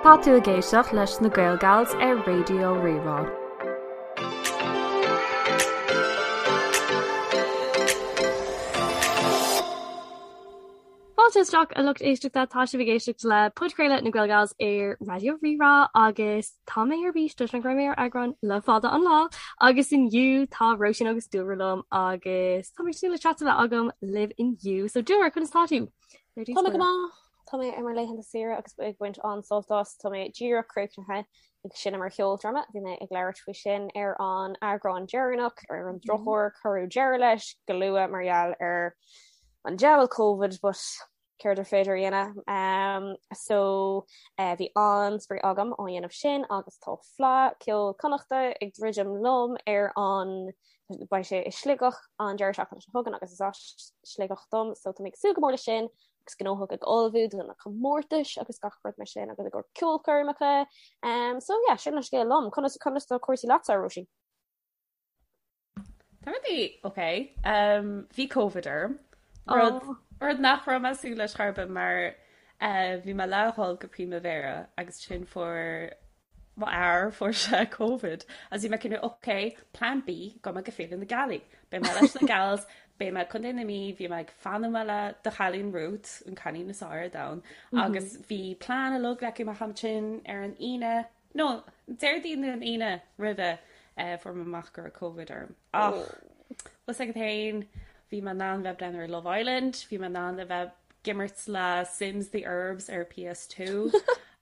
Tá tú ag éisteacht leis na Gaelgals ar Raidió Rí-Rá. Fáilte isteach a lucht éisteachta, tá sibh ag éisteacht le podchraoladh na Gaelgals ar Raidió Rí-Rá agus tá mé ar bís toisc nach raibh mé ar eagrán le fada an lá agus inniu tá Róisín agus Dúlra liom agus tá mé ag súil le chat a bheith agam libh inniu. So Dúlra, conas tá tú? Tá mé go maith. Tá mé ar mo laethanta saoire agus ag baint an-sult as. Tá mé díreach críochnaithe ag seinm ar cheoldráma. Bhí mé ag labhairt faoi sin ar an eagrán deireanach, ar an drochuair cuireadh deireadh leis go luath mar gheall ar an diabhal Covid, but céard ar féidir a dhéanamh? Um, so uh, bhí an-spraoi agam á dhéanamh sin agus tá Fleadh Ceoil Connachta ag druidim liom ar an beidh sé i Sligeach an deireadh seachtaine seo chugainn agus is as Sligeach dom, so tá mé ag súil go mór leis sin agus gnóthach ag ullmhú do na comórtais agus gach rud mar sin agus i gcomhair ceolchoirmeacha. Um, so yeah, sin an scéal liom. Conas conas tá cúrsaí leatsa, Róisín? Tá rudaí ok. Um, bhí Covid orm. Rud, oh. rud nach raibh mé ag súil leis chor ar bith mar uh, bhí mé le dhul go Primavera agus ansin fuair Mo fhear, fuair sé Covid agus bhí mé cineál ok, plan B, gabhfaidh mé go Féile na Gealaí. Beidh mé leis na gals, beidh mé i Contae na Mí, bhí mé ag fanacht le do chailín Ruth, an cailín is fearr ar domhan, agus bhí plean uilig leagtha amach ansin ar an Aoine, no, Déardaoin nó an Aoine roimhe, fuair mé amach go raibh Covid orm. Ach, bhfuil fhios agat féin, bhí mé in ann bheith ag breathnú ar Love Island, bhí mé in ann a bheith ag imirt le Sims The Urbs ar PS2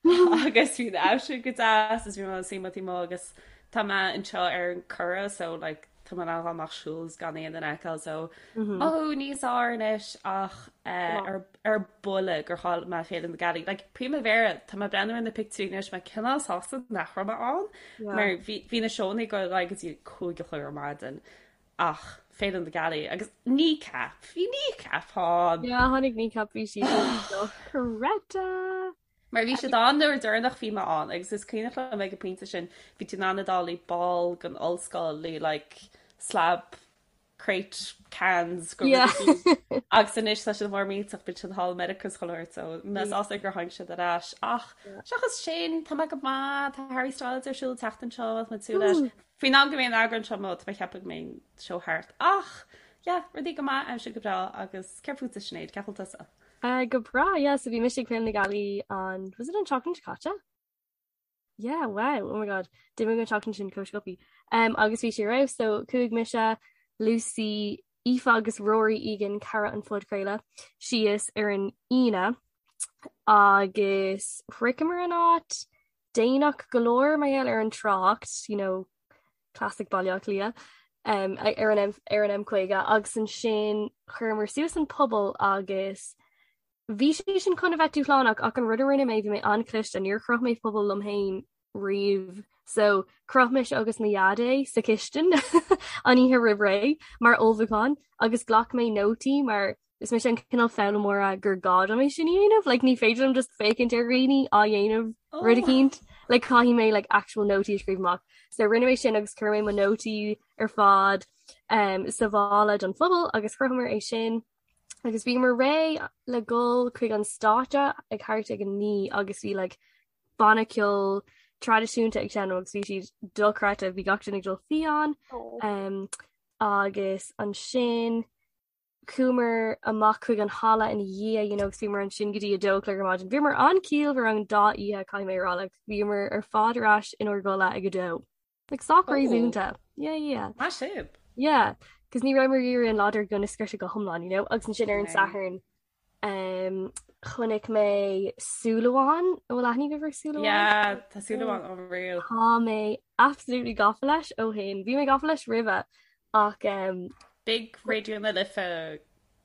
agus bhí an aimsir go deas is bhí mé suí taobh amuigh agus tá mé anseo ar an Curragh so like tá mé in ann dul amach siúl is gan aon duine a fheiceáil so mothú níos fearr anois ach eh, ar ar buile gur chaill mé Féile na Gealaí. Like Primavera tá mé ag breathnú ar na pictiúirí anois mé cineál sásta nach raibh mé ann mar bhí bhí na seónna ag dul ar aghaidh go dtí 5 a chlog ar maidin ach Féile na Gealaí agus Kneecap, bhí Kneecap ann. Yeah, tháinig Kneecap bhí siad dochreidte. Mar bhí siad ann nuair deireanach bhí mé ann agus is cuimhneach liom ag an pointe sin bhí tú in ann a dul i ball den ollscoil le like slab crate cans go Yeah. agus anois tá siad mór millteach bíonn siad thall i Meiriceá is chuile shórt so mé sásta gur tháinig siad ar ais ach seachas sin tá mé go maith tá Harry Styles ar siúl an tseachtain seo tá mé ag súil leis. Faoin am go mbeidh an eagrán seo amuigh tá mé ag ceapadh go mbeidh an seó thart ach yeah rudaí go maith aimsir go breá agus céard fútsa Sinéad cén chaoi a bhfuil tusa? Uh, go breá, yeah, so bhí mise ag Féile na Gealaí an, was it an tseachtain seo caite? Yeah, wow, oh my god, d'imigh an tseachtain sin chomh sciobtha. Um, agus bhí sé ar fheabhas, so chuaigh mise, Lucy, Aoife agus Rory Egan, cara an phodchraoladh, síos ar an Aoine agus shroicheamar an áit déanach go leor mar gheall ar an trácht, you know, classic Baile Átha Cliath, um, ar an M, ar an M50 agus ansin chuireamar suas an puball agus bhí sé sin chun a bheith dúshlánach ach an rud a rinne mé bhí mé an-chliste, níor chroch mé puball liom féin riamh so chroch mise agus mo dhaid é sa chistin an oíche roimh ré mar ullmhúchán agus ghlac mé nótaí mar Is mise an cineál foghlaimeora gur gá dom é sin a dhéanamh, like ní féidir liom just féachaint ar dhaoine á dhéanamh rud eicínt, like caithfidh mé like actual nótaí a scríobh amach. So rinne mé sin agus chuir mé mo nótaí ar fad um, sa mhála don phuball agus chrochamar é sin agus bhíomar réidh le dhul chuig an stáitse ag thart ag a 9 agus bhí like banna ceoil traidisiúnta ag seinm agus bhí siad dochreidte, bhí gach duine ag dul fiáin um, agus ansin Chuamar amach chuig an halla ina dhiaidh, you know, agus bhíomar ansin go dtí 2 a chlog ar maidin. Bhíomar an-chiallmhar an dá oíche, caithfidh mé a rá, like, bhíomar ar fad ar ais inár gcodladh ag 2. Like, sách réasúnta. Yeah, yeah. Maith sibh. Yeah, cos ní rabhamar ag iarraidh an lá dár gcionn a scriosadh go hiomlán, you know, agus ansin ar an Satharn, um, chonaic mé Súil Amháin, an bhfuil aithne agaibh ar Súil Amháin? Yeah, tá Súil Amháin unreal. Tá mé absolutely gafa leis ó shin. Bhí mé gafa leis roimhe, Ach um, Big Raidió na Life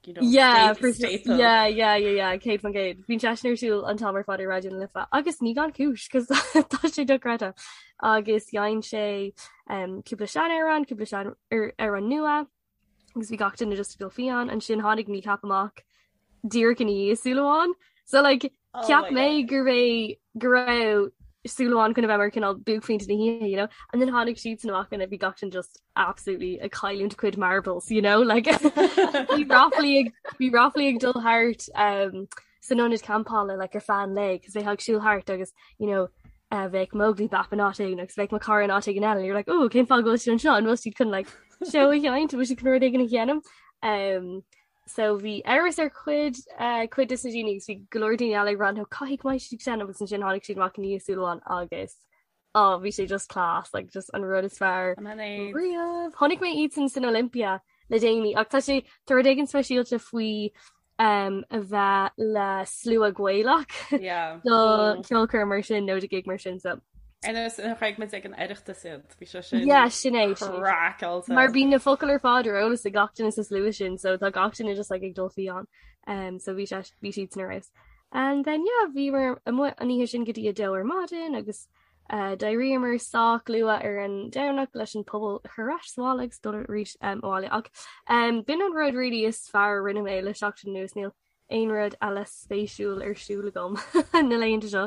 you know, yeah, staple. Yeah, yeah, yeah, yeah, 100%. Bíonn seisean ar siúl an t-am ar fad ar Raidió na Life agus ní gan cúis cos tá sé dochreidte. Agus dhein sé um, cúpla seanamhrán, cúpla sean ar, amhrán nua agus bhí gach duine just ag dul fiáin ansin tháinig Kneecap amach díreach ina dhiaidh Súil Amháin. So like oh cheap mé go raibh go raibh Súil Amháin chun a bheith mar cineál buaicphointe na hoíche, you know? And then tháinig siadsan amach and bhí gach duine just absolutely ag cailliúint a cuid marbles, you know? Like bhí ráflaí ag bhí ráflaí ag dul thart um, san ionad campála like ar feadh an lae cos bheifeá ag siúl thart agus you know uh, bheadh Mowgli Bap in áit éigin agus bheadh mo chara in áit éigin eile and you're like oh cén fáth go bhfuil siad anseo an bhfuil siad chun like seó a sheinnt bhfuil siad chun rud éigin a dhéanamh um, so bhí amhras ar chuid uh, cuid de na daoine agus bhí go leor daoine eile ag rá no caithfidh go mbeidh siad ag seinm agus ansin tháinig siad amach i ndiaidh súil amháin agus oh bhí sé just class like just an rud is fearr riamh. Chonaic mé iad sin san Olympia le déanaí ach tá sé tá rud éigin speisialta faoi um, a bheith le slua Gaelach yeah. do mm. ceolchoirm mar sin nó do gig mar sin so. Ar nós nuair a chonaic muid ag an Oireachtas iad, bhí sé sin Yeah, sin é, sin é. craiceáilte. Mar bíonn na focail ar fad ar eolas ag gach duine sa slua sin, so tá gach duine just like ag dul fiáin. Um, so bhí sé bhí siad sin ar fheabhas. And then yeah, bhíomar amuigh an oíche sin go dtí a dó ar maidin agus uh, d'éiríomar sách luath ar an Domhnach leis an puball a chur ar ais sa bhaile agus dul arís um, abhaile. Ach um, b'in an rud really is fearr a rinne mé le seachtain anuas níl aon rud eile spéisiúil ar siúl agam na laethanta seo.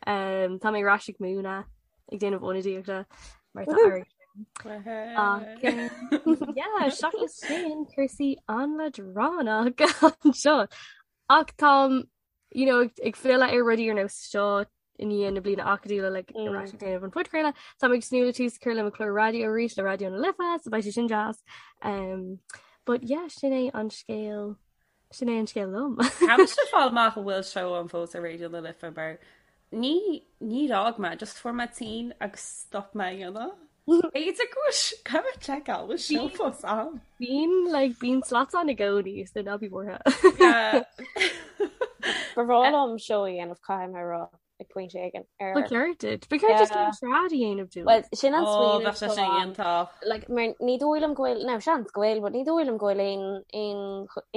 Um, tá mé ar ais ag múineadh ag déanamh ionadaíochta mar tá air. Ach um, yeah, seachas sin cúrsaí an-leadránach anseo. Ach táim you know, ag filleadh ar rudaí ar nós seo i ndiaidh na bliana acadúla like, mm. ar ais ag déanamh an phodchraoladh. Táim ag tnúth le tús a chur le mo chlár raidió arís le Raidió na Life, so beidh sé sin deas. Um, but yeah, sin é an scéal sin é an scéal liom. Caithfidh mé fáil amach an bhfuil seó ann fós ar Raidió na Life mar ní ní fhág mé, just fuair mé tinn agus stop mé a dhéanamh. B'fhéidir go bhfuil caithfidh mé seiceáil bhfuil seó fós ann. Bíonn like bíonn slots ann i gcónaí so ná bí buartha. Ba bhreá liom seó a dhéanamh caithfidh mé a rá ag pointe éigin ar Ba cheart duit. Ba cheart duit cén trad a dhéanamh dúinn. Well sin an Ó smaoineamh bheadh sé atá sin ann. iontach. Like mar ní dóigh liom go bhfuil now seans go bhfuil but ní dóigh liom go bhfuil aon aon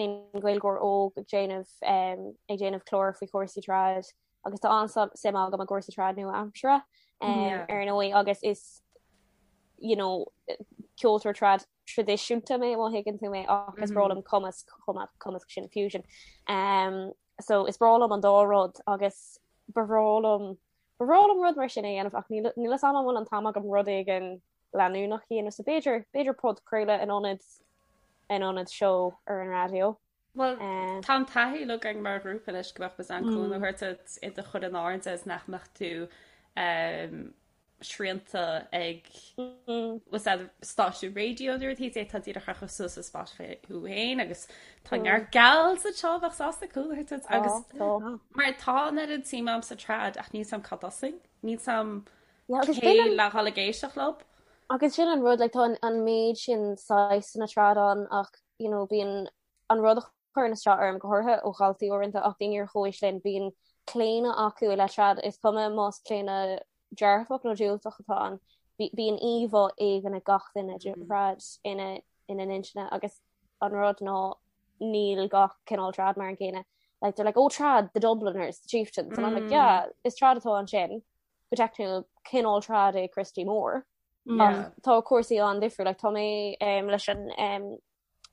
aon Ghaeilgeoir óg ag déanamh um, ag déanamh clár faoi chúrsaí trad agus tá an-suim agam i gcúrsaí trad nua-aimseartha um, ar ndóigh agus is you know, ceoltóir trad traidisiúnta mé má thuigeann tú mé ach is breá liom cumasc chomh maith cumasc sin fusion. Um, so is breá liom an dá rud agus ba bhreá liom ba bhreá liom rud mar sin a dhéanamh ach níl níl a fhios agam an bhfuil an t-am agam rud éigin leanúnach a dhéanamh so b'fhéidir b'fhéidir podchraoladh in ionad in ionad seó ar an raidió. Bhuel, tá an taithí againn mar ghrúpa anois go mbeadh muid in ann cúnamh a thabhairt duit i do chur in airde is nach mbeadh tú srianta ag stáisiún raidió nó rudaí tá díreach a chur suas ar Spotify thú féin agus tá neart gals anseo a bheadh sásta cúnamh a thabhairt duit agus mar tá an oiread suim agam sa trad ach níl a fhios agam cá dtosóinn, níl a fhios agam cé le dhul ag éisteacht leo. Agus sin an rud, like, tá an méid sin saghsanna trad ann ach you know, bíonn an rud a chuireann isteach orm, go háirithe ó dhaltaí uaireanta ach daoine ar chomhaois linn, bíonn claonadh acu i leith trad, is cuma más claonadh dearfach nó diúltach atá ann, bíonn íomhá éigin ag gach duine de thrad ina ina n-intinne agus an rud ná níl gach cineál trad mar an gcéanna. Like, they're like, oh, trad, the Dubliners, the Chieftains, and I'm like, yeah, is trad atá ansin, go teicniúil, cineál trad é Christy Moore. Ach tá cúrsaí an-difriúil, like, tá mé um, leis an um,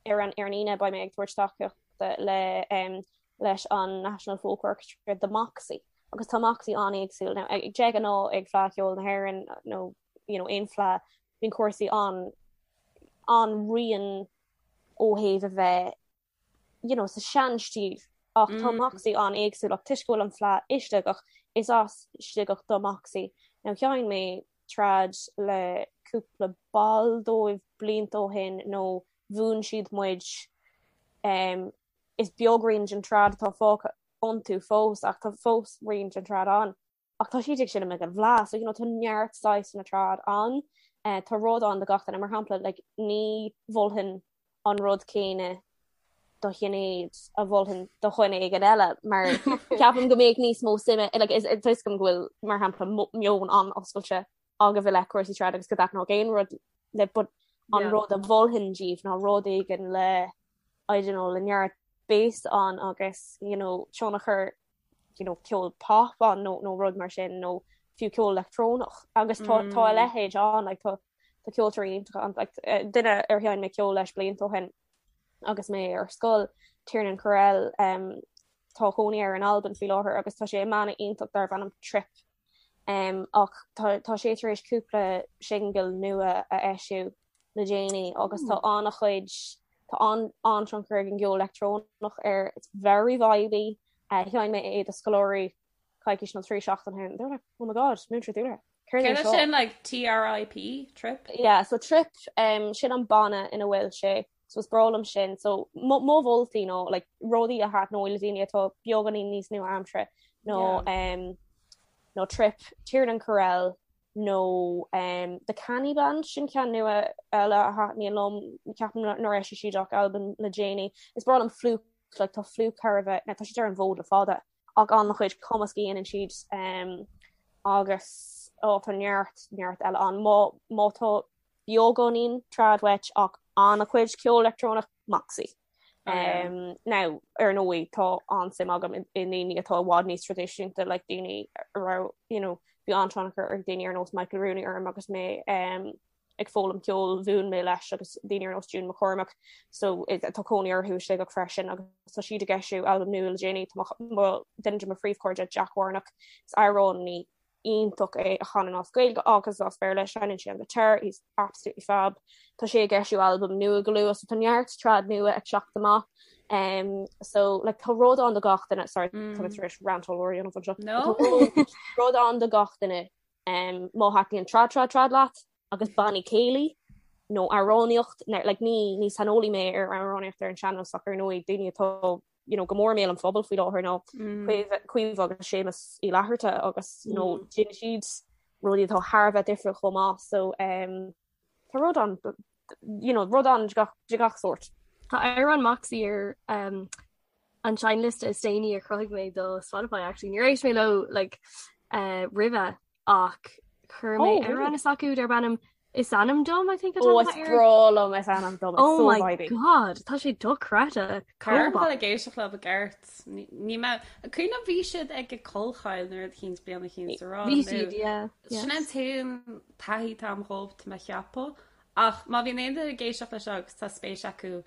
ar an ar an Aoine beidh mé ag tabhairt tacaíochta le um, leis an National Folk Orchestra do Moxie agus tá Moxie an-éagsúil now ag de ghnáth ag Fleadh Cheoil na hÉireann nó you know, aon fleadh bíonn cúrsaí an an-righin ó thaobh a bheith you know, sa seanstíl ach tá Moxie an-éagsúil ach toisc go bhfuil an fleadh i Sligeach, is as Sligeach do Moxie. Now sheinn mé trad le cúpla ball dóibh blianta ó shin nó mhúin siad muid um, is beag rian den trad atá fágtha iontu fós ach tá fós rian den trad ann. Ach tá siad ag seinm ag an bhFleadh, so you know tá neart saghsanna trad ann, tá rud ann do gach duine, mar shampla like ní mholfainn an rud céanna do Shinéad a mholfainn do dhuine éigin eile mar ceapaim go mbeadh níos mó suime like is tá a fhios agam go bhfuil mar shampla meon an-oscailte agaibh i leith cúrsaí trad agus go dtaitneodh aon rud libh but an rud a mholfainn díbh ná rud éigin le I don't know le neart bass ann agus you know tionchar you know, ceol pop ann nó, nó rud mar sin nó fiú ceol leictreonach agus tá, mm. tá a leithéid ann like, tá, tá ceoltóirí iontacha ann like, eh, duine ar sheinn mé ceol leis blianta ó shin agus mé ar scoil Tiernan Correll um, tá cónaí air in Albain faoi láthair agus tá sé i mbanna iontach darb ainm Trip um, ach tá, tá sé tar éis cúpla singil nua a eisiú le déanaí agus tá an-chuid tá an an-tionchar ag an gceol leictreonach air it's very vibey. Sheinn mé é do scoláirí coicís nó 3 seachtain ó shin. They were like, oh my god, Múinteoir Dúlra. Céard é sin like TRIP, trip? Yeah, so trip, um, sin an banna ina bhfuil sé, so is breá liom sin. So mo mholtaí nó like rudaí a thaitneoidh le daoine atá beagáinín níos nua-aimseartha nó yeah. um, nó trip, Tiernan Correll nó um, The Canny Band sin ceann nua eile a thaitníonn liom ceapaim nár eisigh siad ach albam le déanaí. Is breá liom Flook like tá Flook thar a bheith, tá siad ar an bhfód le fada ach an-chuid cumasc a dhéanann siad um, agus ó tá neart neart eile ann má má tá beagáinín trad uait ach an-chuid ceol leictreonach Moxie. Oh, yeah. Um, now ar ndóigh tá an-suim agam i ndaoine atá i bhfad níos traidisiúnta like daoine a raibh you know, bhí an-tionchar ag daoine ar nós Michael Rooney orm agus mé um, ag foghlaim ceoil mhúin mé leis agus daoine ar nós June McCormack so tá cónaí orthu i Sligeach freisin agus tá siad ag eisiú albam nua le déanaí tá duine de mo phríomhchairde Jack Warnock is amhránaí iontach é a chanann as Gaeilge agus as Béarla seinneann sé an guitar he's absolutely fab tá sé ag eisiú albam nua go luath so tá neart trad nua ag teacht amach um so like tá rud ann do gach duine sorry mm. tá tar éis rant ollmhór a dhéanamh anseo no rud ann do gach duine Má thaitníonn trad trad trad leat agus bannaí céilí nó amhránaíocht, like ní ní saineolaí mé ar amhránaíocht ar an sean-nós ach ar ndóigh daoine atá you know go mór i mbéal an phobail faoi láthair ná Caoimhe agus Séamus Uí Fhlatharta agus you know déanann siad rudaí atá thar a bheith difriúil chomh maith so um, tá rud ann you know, rud ann de gach, de gach sórt. Tá amhrán Moxie ar um, an seinnliosta is déanaí a chruthaigh mé do Spotify actually. Níor éist mé leo like, uh, roimhe ach chuir mé oh, amhrán s'acu darb ainm Is ainm dom I think oh, is breá liom is ainm dom. Oh so my vibey. God, tá sé dochreidte. Caithfidh mé ag éisteacht leo i gceart. Ní mé cuimhin bhí siad ag Collchoill nuair a chinn bliain a chinn sa rá. Bhí siad, yeah. Sin an t-aon taithí atá agam dhóibh tá mé a cheapadh. Ach má bhíonn aon duine ag éisteacht leis seo agus tá spéis acu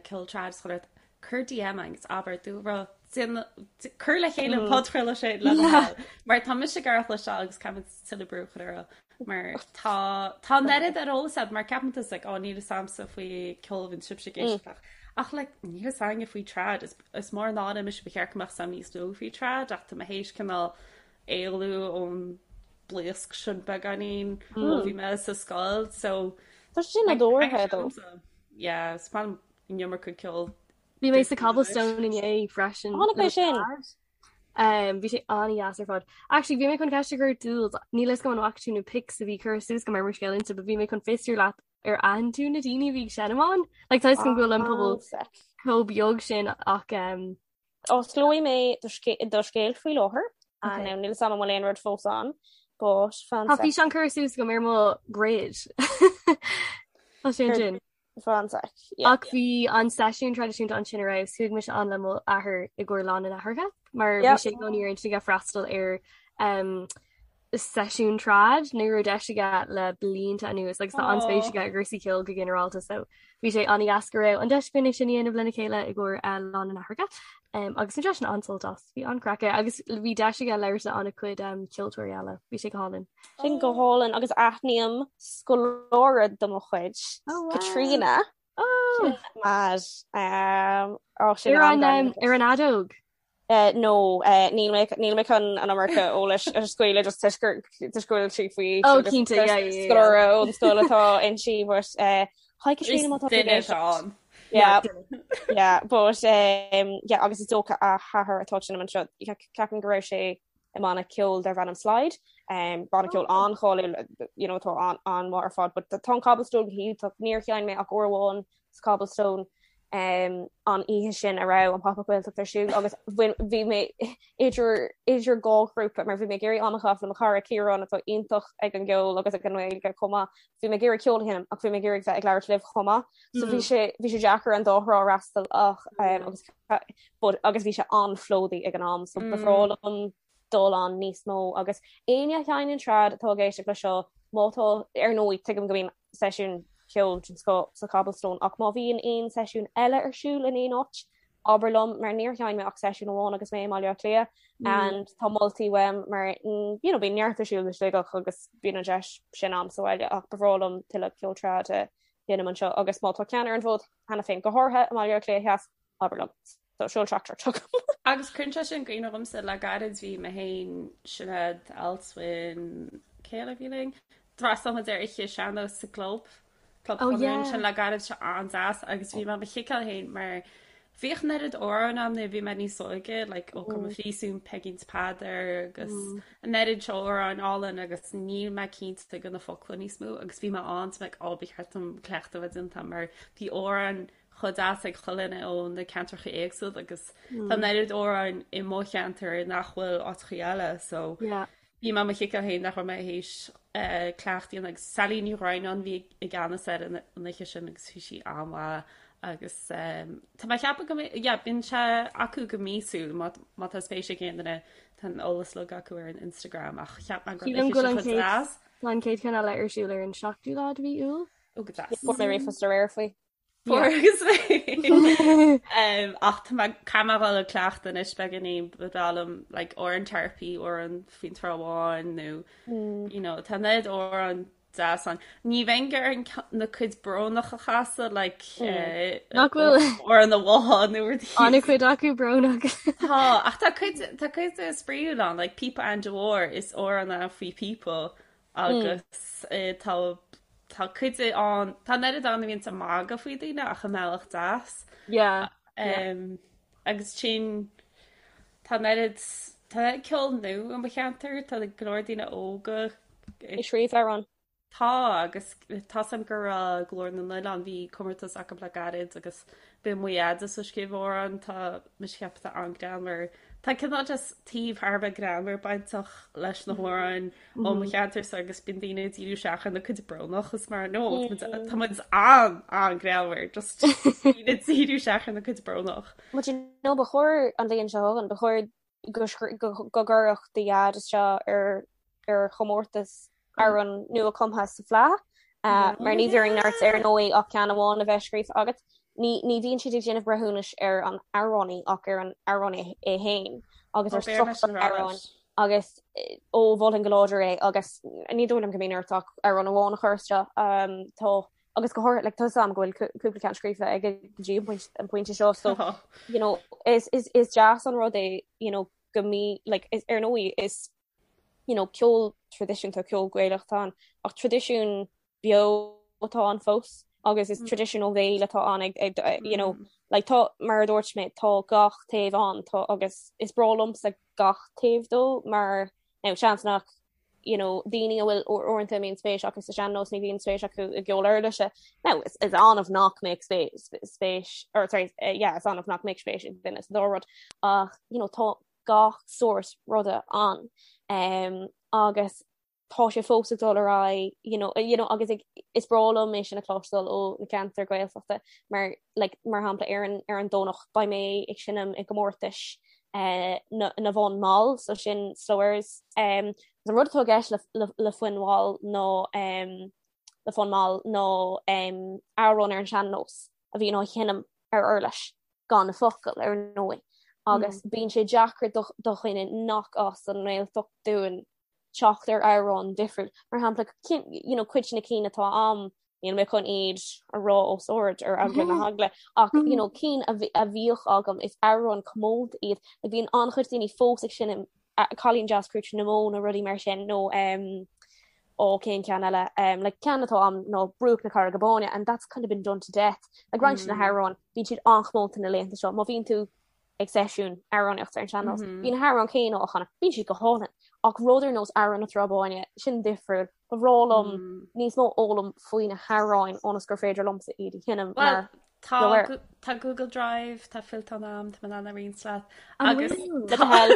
ceol trad is chuile rud, cuir DM agus abair dúlra cuir le chéile an podchraoladh sin le do thoil. Mar tá mise ag amharc leis seo agus caithfidh muid tuilleadh brú a chur orthu. Mar tá tá an oiread ar eolas a'd mar ceapann tusa like, ó níl fhios a'msa faoi ceol a bhíonn sibhse ag éisteacht leis. Ach like níl fhios a'inne faoi trad is is mór an náire mise ba cheart go mbeadh 's a'm níos mó faoi trad ach tá mé théis cineál éalú ón blaosc sin beagáinín ó bhí mé sa scoil so Tá sé sin nádúrtha though. Yeah, is maith liom an iomarca ceoil. Bhí mé sa Cobblestone inné freisin. Chonaic mé sin. Um, bhí sé an-deas ar fad. Actually, bhí mé chun ceist a chur Dúls, níl fhios agam an bhfaca tú na pics a bhí curtha suas agam ar mo scéal Insta, but bhí mé chun fiosrú leat ar aithin tú na daoine a bhí ag seinm ann. Like, tá fhios agam go bhfuil an pobal chomh beag sin ach um, Osclóidh mé do scéal faoi láthair. Okay. Now, níl fhios agam an bhfuil aon rud fós ann, but fan Tá físeán curtha suas agam ar mo grid. Tá sé ansin. Fan sec. Ach bhí an seisiún traidisiúnta ansin ar fheabhas, chuaigh mise ann le mo athair i gcomhair Lá na nAithreacha, mar bhí sé i gcónaí ar intinn aige freastal ar um, seisiún trad ní raibh deis aige le blianta anuas agus tá an-spéis aige i gcúrsaí ceoil go ginearálta so bhí sé an-dheas go raibh an deis againn é sin a dhéanamh lena chéile i gcomhair uh, Lá na nAithreacha um, agus bhain seisean an-sult as bhí an-chraic aige agus bhí deis aige labhairt le an-chuid um, ceoltóirí eile bhí sé go hálainn. Sin go hálainn agus aithním scoláire de mo chuid oh, wow. Katrina oh. Mar um, oh, sin ar an, um, ar an fheadóg. Eh, no, eh, níl mé níl mé chun an iomarca eolais a scaoileadh just toisc gur toisc go bhfuil sí faoi aois Oh, agus cinnte, yeah, yeah, yeah. scoláire ón scoil atá inti, but eh, hi Katrina má tá tú ag Duine éisteacht. ann. Yeah, yeah, but um, yeah, agus is dócha a hathair atá ag seinm anseo, ceapaim go raibh sé i mbanna ceoil darb ainm Slide, um, banna ceoil oh. an-cháiliúil, you know, atá an an-mhaith ar fad, but tá an Cobblestone go hiontach, níor sheinn mé ach uair amháin sa Cobblestone um, an oíche sin a raibh an Pop-Up Gaeltacht ar siúl agus bhí mé idir idir dhá ghrúpa mar bhí mé ag iarraidh am a chaitheamh le mo chara Ciarán atá iontach ag an gceol agus ag an nGaeilge chomh maith. Bhí mé ag iarraidh ceol a sheinm ach bhí mé ag iarraidh bheith ag labhairt libh chomh maith. So bhí mm. sé bhí sé deacair an dá thrá a fhreastal ach um, agus but agus bhí sé an-phlódaithe ag an am so ba bhreá liom dul ann níos mó agus éinne a sheinneann trad atá ag éisteacht le seo má tá ar ndóigh tuigim go mbíonn seisiún ceoil den scoth sa Cobblestone ach má bhíonn aon seisiún eile ar siúl in aon áit abair liom mar níor sheinn mé ach seisiún amháin agus mé i mBaile Átha Cliath and tá moltaí uaim mar you know bíonn neart ar siúl i Sligeach agus bíonn an deis sin a'm sa bhaile ach ba bhreá liom tuilleadh ceol trad a sheinm anseo agus má tá ceann ar an bhfód cheana féin go háirithe i mBaile Átha Cliath Theas abair liom. So seol teachtaireacht chugam. Agus cuireann sé sin i gcuimhne dhomsa le gairid bhí mé féin, Sinéad, Alswyn, cé eile a bhí linn? D'fhreastail muid ar oíche sean-nós sa gclub, Club Oh Chonradh yeah. ansin le gairid sé an-deas agus bhí mé mo chiceáil féin mar bhíodh an oiread amhrán ann nuair a bhí mé níos óige like Ó Cá mo Phríosún, Peigín 's Peadar agus an oiread seo amhráin álainn agus níl mé cinnte de na focla níos mó agus bhí mé ann so like ó ba cheart dom cleachtadh a bheith déanta mar bhí amhráin chomh deas ag chuile dhuine ó na ceantracha éagsúla agus tá an oiread amhráin i mo cheantar nach bhfuil áiteachaí eile so Yeah. bhí mé mo chiceáil féin nach raibh mé théis cleachtadh a dhéanamh agus Sally Ní Dhroighneáin bhí i gceannas ar an oíche sin agus bhí sí an-mhaith agus tá mé ag ceapadh go mbeidh yeah bíonn sé acu go míosúil má má tá spéis ag aon duine tá an eolas uilig acu ar an Instagram ach cheap mé go raibh Sílim an go oíche bhfuil sin an chomh chéad deas. tá an chéad cheann eile ar siúl ar an 7ú lá de mhí Iúil. Ó go deas. Fuair mé ríomhphost aréir faoi. Fuair Yeah. agus mé. Um, ach tá mé caithfidh mé dhul ag cleachtadh anois beagáinín ba bhreá liom like, amhrán Tarpey, amhrán faoin Trá Bháin nó you know, tá an oiread amhrán deas ann. Ní bheinn ag iarraidh na cuid brónach a chasadh like, eh, Nach bhfuil amhrán an bhátha nó rudaí. an-chuid acu brónach. Tá, ach tá cuid tá cuid spraíúil ann, like Píopa Aindí Mhóir is amhrán é faoi phíopa Agus tá tá cuid ann, tá an oiread ann a bhíonns ag magadh faoi daoine ach i mbealach deas. Yeah, yeah. Agus sin tá an oiread tá an oiread ceol nua i mo cheantar, tá go leor daoine óga ag scríobh amhrán. Tá agus tá's a'm go raibh Glór na nOileán, bhí comórtas acu le gairid agus bhí mo dhaid ag scríobh amhrán, tá mise ag ceapadh tá an-greannmhar. Tá cineál just taobh thar a bheith greannmhar bainteach leis na hamhráin ó mo cheantarsa agus bíonn daoine ag díriú isteach ar na cuid brónach is mar no tá muid an an-greannmhar just daoine ag díriú isteach ar na cuid brónach. But you know ba chóir an bhliain seo chugainn, ba chóir go go gcuirfeadh do dhaid isteach ar ar chomórtas amhrán nua cumtha sa Fleadh mar ní bhíonn ort ar ndóigh ach ceann amháin a bheith scríofa agat. Ní ní bhíonn siad ag déanamh breithiúnais ar an amhránaí ach ar an amhránaí é féin agus ar struchtúr an amhráin agus ó mholfainn go láidir é agus ní dóigh liom go mbíonn ort ach amhrán amháin a chur isteach. Tá agus go háirithe like, tá 'fhios a'm go bhfuil cúpla ceann scríofa aige go dtí an pointe seo so you know, is, is, is deas an rud é you know, go mí like, is, ar ndóigh is you know, ceol traidisiúnta ceol Gaelach atá ann ach traidisiún beo atá ann fós agus is traidisiún ó bhéal atá ann ag, ag, you know, like, tá mar a dúirt mé tá gach taobh ann tá agus is breá liomsa gach taobh dó mar now seans nach you know, daoine a bhfuil uaireanta a mbíonn spéis acu sa sean-nós ní bhíonn spéis acu i gceol uirlise. Now is, is annamh nach mbeadh spéis, spéis or sorry, uh, yeah, is annamh nach mbeadh spéis ag duine sa dá rud ach you know, tá gach sórt ruda ann um, agus tá sé fós ag dul ar aghaidh you know, you know, agus ag, is breá liom é sin a chloisteáil ó na ceantair Gaeltachta mar like, mar shampla ar an, ar an Domhnach beidh mé ag seinm i gcomórtais uh, na, na bhfonn mall so sin slow airs um, an rud atá i gceist le, le, le foinn mhall nó um, le fonn mall nó um, amhrán ar an sean-nós a bhíonn á sheinm ar uirlis gan na focail ar ndóigh agus bíonn sé deacair do dhuine nach as an nGaeltacht dúinn teacht ar amhrán difriúil. Mar shampla you know, cuid de na cinn atá a'm níl mé chun iad a rá os ard ar eagla na heagla ach you know, cinn a bhíodh agam is amhráin comónta iad. Like, bíonn an-chuid daoine fós ag seinm Cailín Deas Crúite na mBó nó rudaí mar sin nó um, ó cén ceann eile um, like, ceann atá a'm ná Bruach na Carraige Báine and that's kind of been done to death. Like, roinnt de na hamhráin bíonn siad an-chomónta na laethanta seo. Má bhíonn tú ag seisiún amhránaíochta ar an sean-nós bíonn na hamhráin céanna á chanadh, bíonn siad go hálainn. Ach rud ar nós Amhrán na Trá Báine, sin difriúil. Ba bhreá liom níos mó a fhoghlaim faoi na hamhráin ionas gur féidir liomsa iad a sheinm mar Tá tá Google Drive, tá fillteán a'm, tá mé in ann a roinnt leat. Agus Le do thoil.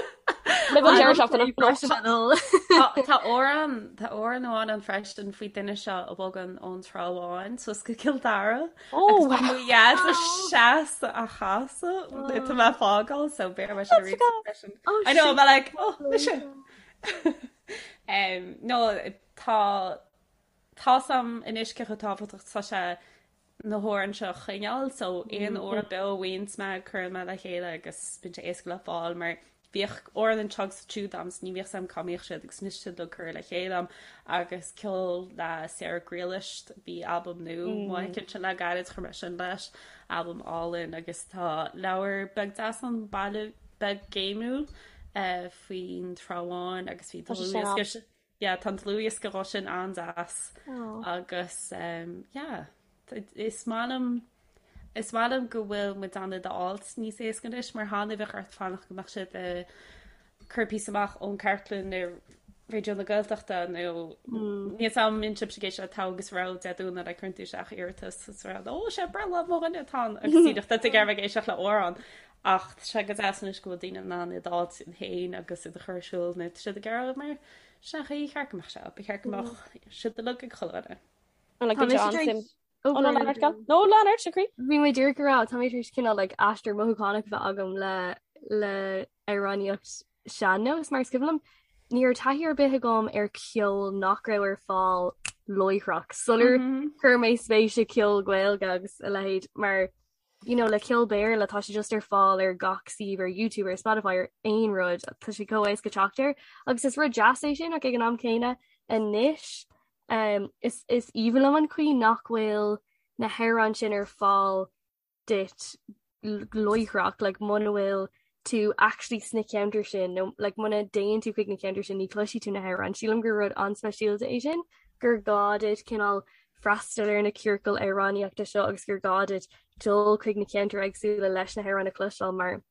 Roimh an deireadh seachtaine. Tá amhrán tá amhrán amháin ann freisin faoi duine seo a bhogann ón Trá Bháin suas go Cill Dara. Oh, Agus tá mo dhaid seasta á chasadh tá mé ag fágáil so b'fhéidir mé sin arís freisin. I know, I'm like, oh, mise. Um, no, tá tá's a'm anois cé chomh tábhachtach tá sé na hamhráin seo a choinneáil so aon amhrán beo a bhfaigheanns mé cuireann mé le chéile agus bíonn sé éasca le fáil mar. Bhíodh amhráin anseo agus ansiúd a'm 's ní bhíodh 's a'm cá mbíodh siad agus anois tá siad uilig curtha le chéile a'm agus ceol le Sarah Ghriallais, bhí albam nua amuigh aici ansin le gairid, chuir mé sin leis, albam álainn agus tá leabhar beag deas ann, Baile Beag Géimiúil, faoin Trá Bháin agus bhí dlúthdhiosca, yeah tá an dlúthdhiosca dhó sin an-deas agus yeah is maith liom Is maith liom go bhfuil muid in ann iad a fháilt níos éasca anois mar cheana bheadh ort fanacht go mbeadh siad ag cur píosa amach ón chartlann ar Raidió na Gaeltachta nó níl 'fhios a'm an mbíonn sibhse ag éisteacht le Togha agus Rogha Dé Domhnaigh like cuireann tú isteach iarratas is rá ó sé breithlá mo dhuine atá ann agus díreach tá tú ag iarraidh bheith ag éisteacht le amhrán ach tá sé go deas anois go bhfuil daoine in ann iad a fháilt féin agus iad a chur ar siúl nuair atá siad ag iarraidh mar sin an chaoi ar cheart go mbeadh sé ba cheart go mbeadh siad uilig ag chuile dhuine. An like, bhí sé an-suim Ó, no, lean ort, gal. No, lean ort, a chroí. Bhí mé díreach ag rá, tá mé tar éis cineál like aistear mothúchánach a bheith agam le le amhránaíocht sean-nós mar is cuimhin liom ní raibh taithí ar bith agam ar ceol nach raibh ar fáil láithreach sular chuir mé spéis i ceol Gaeilge agus a leithéid mar you know le ceol Béarla tá sé just ar fáil ar gach suíomh ar YouTube ar Spotify ar aon rud tá sé chomh éasca teacht air agus is rud deas é sin ach ag an am céanna anois Um, is, is aoibhinn liom an chaoi nach bhfuil na hamhráin sin ar fáil duit láithreach, like, muna bhfuil tú actually sna ceantair sin nó like, muna dtéann tú chuig na ceantair sin ní chloisfidh tú na hamhráin. Sílim gur rud an-speisialta é sin, gur gá duit cineál freastal ar na ciorcail amhránaíochta seo agus gur gá duit dul chuig na ceantair éagsúla leis na hamhráin a chloisteáil mar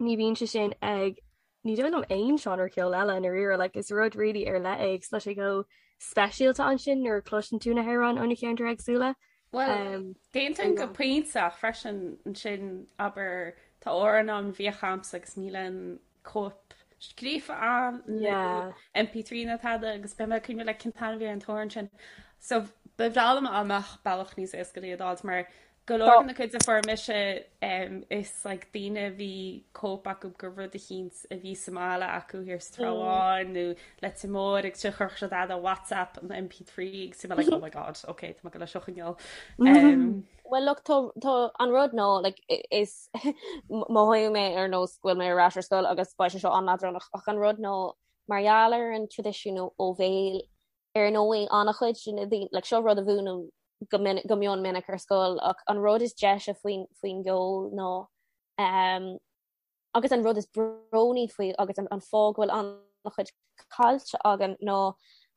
ní bhíonn sé sin ag ní dóigh liom aon seánra ceoil eile i ndáiríre, like is rud really ar leith é agus tá sé chomh speisialta ansin nuair a chloiseann tú na hamhráin ó na ceantair éagsúla. Bhuel, um, d'aontóinn go pointe ach freisin ansin abair tá amhrán ann a bhíodh a'msa agus níl aon cóip scríofa ann nó MP3 ná tada agus beidh mé ag cuimhneamh like cén t-ainm a bhí ar an t-amhrán sin. So ba bhreá liom dá mbeadh bealach níos éasca le iad a fháilt mar Go leor de na cuid a fuair mise is like daoine a bhí cóip acu de rud eicínt a bhí sa mbaile acu thiar sa Trá Bháin nó Leitir Móir agus sin chuirfeadh siad fhad ar WhatsApp an MP3 agus bhí mé like oh my god ok tá mé ag dul é seo a choinneáil. Well look tá tá an rud ná like is mothóidh mé ar nós go bhfuil mé ar ais ar scoil agus beidh sé seo an-leadránach ach an rud ná mar gheall ar an traidisiún ó bhéal Ar ndóigh, an-chuid de na daoine, like, seo rud a mhúinim go minic, go mion minic ar scoil, ach an rud is deise faoin, faoin gceol ná, um, agus an rud is brónaí faoi agus an, an fáth go bhfuil an-chuid caillte againn ná,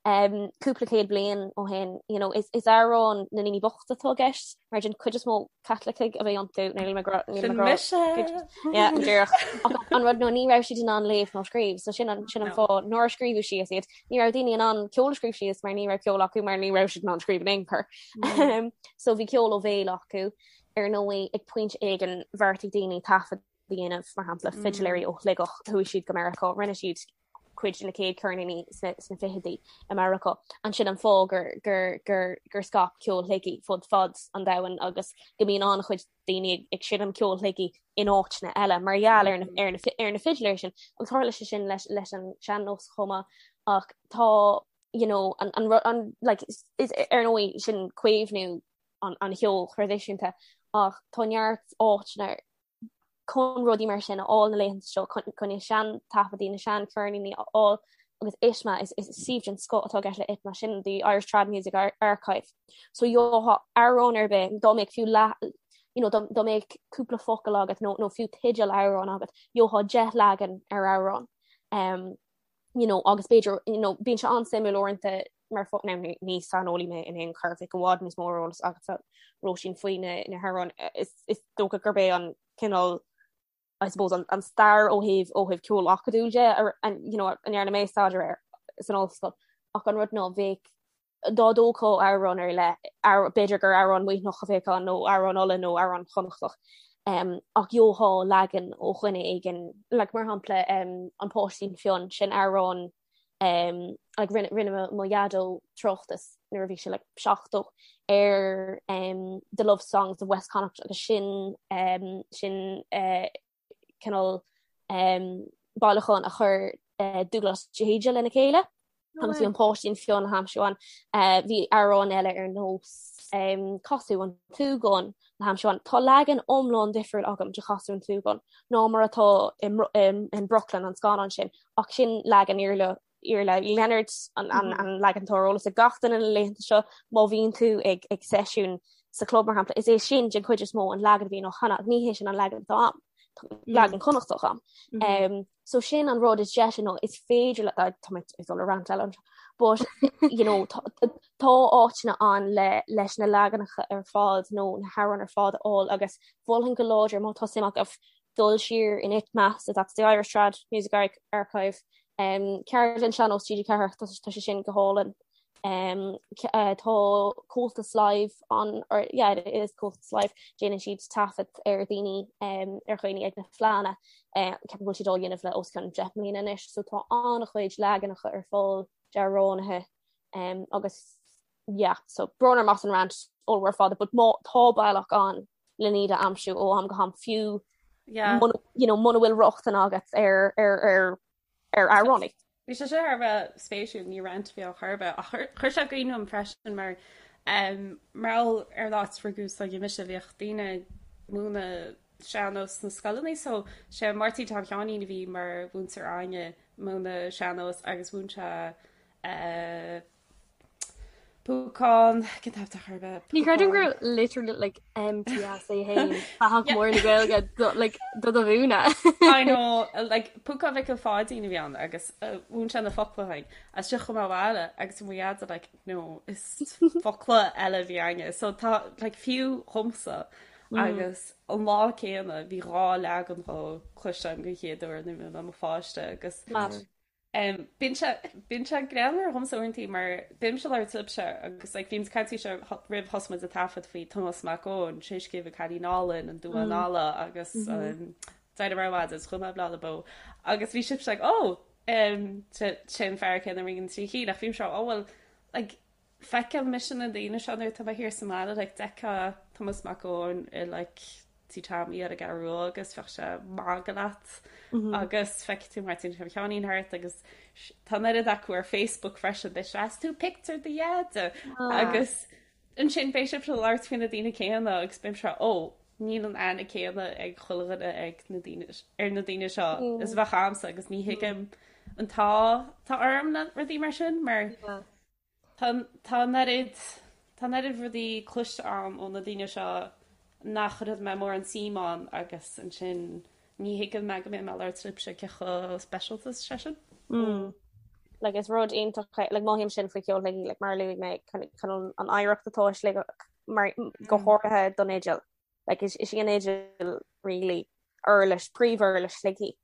um, cúpla céad bliain ó shin, you know, is, is amhráin na ndaoine bochta atá i gceist, mar den chuid is mó Caitlicigh a bhí iontu, níl mé ag rá, níl mé ag rá, Sin mise! Yeah, go díreach. Ach an rud ná ní raibh siad in ann léamh ná scríobh, so sin an, sin an fáth nár scríobhadh síos iad. Ní raibh daoine in ann ceol a scríobh síos mar ní raibh ceol acu mar ní raibh siad in ann scríobh in aon chor. So bhí ceol ó bhéal acu. Ar ndóigh, ag pointe éigin bheartaigh daoine taifead a dhéanamh, mar shampla, fidiléirí ó Shligeach, chuaigh siad go Meiriceá, rinne siad cuid de na chéad cheirníní sna fichidí i Meiriceá. Ansin an fáth gur, gur, gur, gur scaip ceol Shligigh fud fad an domhain agus go mbíonn an-chuid daoine ag, ag seinm ceol Shligigh in áiteanna eile mar gheall ar na, ar na, ar na fidiléirí sin. Agus tharla sé sin leis, leis an sean-nós chomh maith ach tá, you know, an, an, an, like, is, is, ar ndóigh sin caomhnú an, an cheoil thraidisiúnta ach tá neart áiteanna chun rudaí mar sin a fháil na laethanta seo, chun na sean-taifeadtaí, na sean-cheirníní a fháil agus ITMA, is suíomh den scoth atá i gceist le ITMA, sin the Irish Trad Music Archive. So gheofá amhrán ar bith, dá mbeadh fiú leath, you know, dá mbeadh cúpla focal agat nó nó fiú teideal amhrán agat, gheofá 10 leagan ar amhrán. Um, you know, agus b'fhéidir, you know, bíonn sé an-suimiúil uaireanta mar fo now ní ní saineolaí mé in aon chor, bheadh i bhfad níos mó eolas agatsa Róisín faoi na na hamhráin. Is is dócha gurb é an cineál I suppose an an stair ó thaobh ó thaobh ceol acadúil de ar an you know, a ndearna mé staidéar air san ollscoil. Ach an rud ná bheadh dá dtógfá amhrán ar leith, b'fhéidir gur amhrán Muimhneach a bheadh ann nó amhrán Uladh nó amhrán Chonnachtach, ach gheofá leagan ó dhuine éigin, like mar shampla An Páistín Fionn, sin amhrán like rinne rinne mo dhaideo tráchtas nuair a bhí sé like 70 ar The Love Songs of West Connacht agus sin sin cineál bailiúchán a chuir Dúghlás de hÍde lena chéile. Agus bhí an Páistín Fionn le haimsiú ann. Bhí amhráin eile ar nós Casadh an tSúgáin le haimsiú ann. Tá leagan iomlán difriúil agam de Chasadh an tSúgáin ná mar atá in Brooklyn, an scannán sin, ach sin leagan Iarla Iarla Uí Lionáird an an leagan atá ar eolas ag gach duine na laethanta seo má bhíonn tú ag ag seisiún sa chlub mar shampla, is é sin den chuid is mó an leagan a bhíonn á chanadh ach ní hé sin an leagan atá a'm. Leagan Connachtach a'm. Mm. So sin an rud is deise nó is féidir le tá mé ag dul ar rant eile anseo but you know tá tá áiteanna ann le leis na leaganacha ar fad nó na hamhráin ar fad a fháil agus mholfainn go láidir má tá suim agaibh dul siar in ITMA so that's the Irish Trad Music Archive um, Ceardlann Sean-Nós TG4 tá tá sé sin go hálainn Um, uh, tá Comhaltas Live an or yeah, it is Comhaltas Live déanann siad taifead ar daoine um, ar dhaoine ag na fleánna uh, ceapaim go bhfuil siad á dhéanamh le os cionn 10 mbliana anois, so tá an-chuid leaganacha ar fáil d'amhránaithe um, agus yeah, so brón orm as an rant ollmhór fada, but má tá bealach ann le iad a aimsiú ó am go ham fiú yeah. muna, you know, muna bhfuil rochtain agat ar ar ar ar amhránaí. Bhí sé seo thar a bheith spéisiúil, ní rant a bhí ann chor ar bith, ach chuir sé i gcuimhne dom freisin mar mar gheall ar an áit a rugadh s'againne mise, bhíodh daoine ag múineadh sean-nós sna scoileanna so sé Máirtín Tom Sheáinín a bhí mar mhúinteoir againne ag múineadh sean-nós agus mhúin sé Púcán, cén t-ainm atá chor ar bith? Ní chreidim go raibh literally like MTS é féin fathach mór na Gaeilge do like do do mhúineadh. I know, like Púcán Mhicil Pháidín a bhí ann agus mhúin sé na focla dúinn. As sin chuaigh mé abhaile agus bhí mo dheaide like no is focla eile a bhí againne. So tá like fiú dhomsa agus an lá céanna bhí dhá leagan dhó cloiste agam den chéad uair nuair a bhí mé i mo pháiste agus Mad. Bíonn sé, bíonn sé greannmhar dhomsa uaireantaí mar bímse ag labhairt libhse agus like bhíomsa ag caint faoi seo roimh thosaigh muid ag taifead faoi Tomás Mac Eoin, Tréarscéimh an Cailín Álainn, An Duán Alla agus D'éirigh mé ar maidin is chuaigh mé ag Bleá le Bó agus bhí sibhse like oh sé sé an fear céanna a rinne na trí cinn ach bhímse oh well like Feicim mise na daoine seo nuair atá mé thiar sa mbaile like d'fheicfeá Tomás Mac Eoin i like Tí Tommy ar an gCeathrú Rua agus bheadh sé ag magadh leat agus feicfidh tú Máirtín Tom Sheáinín thart agus tá an oiread acu ar Facebook freisin beidh sé is tú pictiúr do dheaide agus ansin beidh sibh ag labhairt faoi na daoine céanna agus bímse ó níl an aithne céanna ag chuile dhuine ag na daoine ar na daoine seo is a bheadh a'msa agus ní thuigim an t-ádh atá orm le rudaí mar sin mar Tá tá an oiread tá an oiread rudaí cloiste a'm ó na daoine seo nach raibh mé mórán suim ann agus ansin ní thuigim mé go mbeidh mé ag labhairt libhse cé chomh speisialta is sé sin. Mm. Like is rud iontach é like mothaím sin faoi cheol Shligigh like mar a luaigh mé chun an oidhreacht atá i Sligeach mar go háirithe don fhidil. Like is is í an fhidil really uirlis, príomhuirlis Shligigh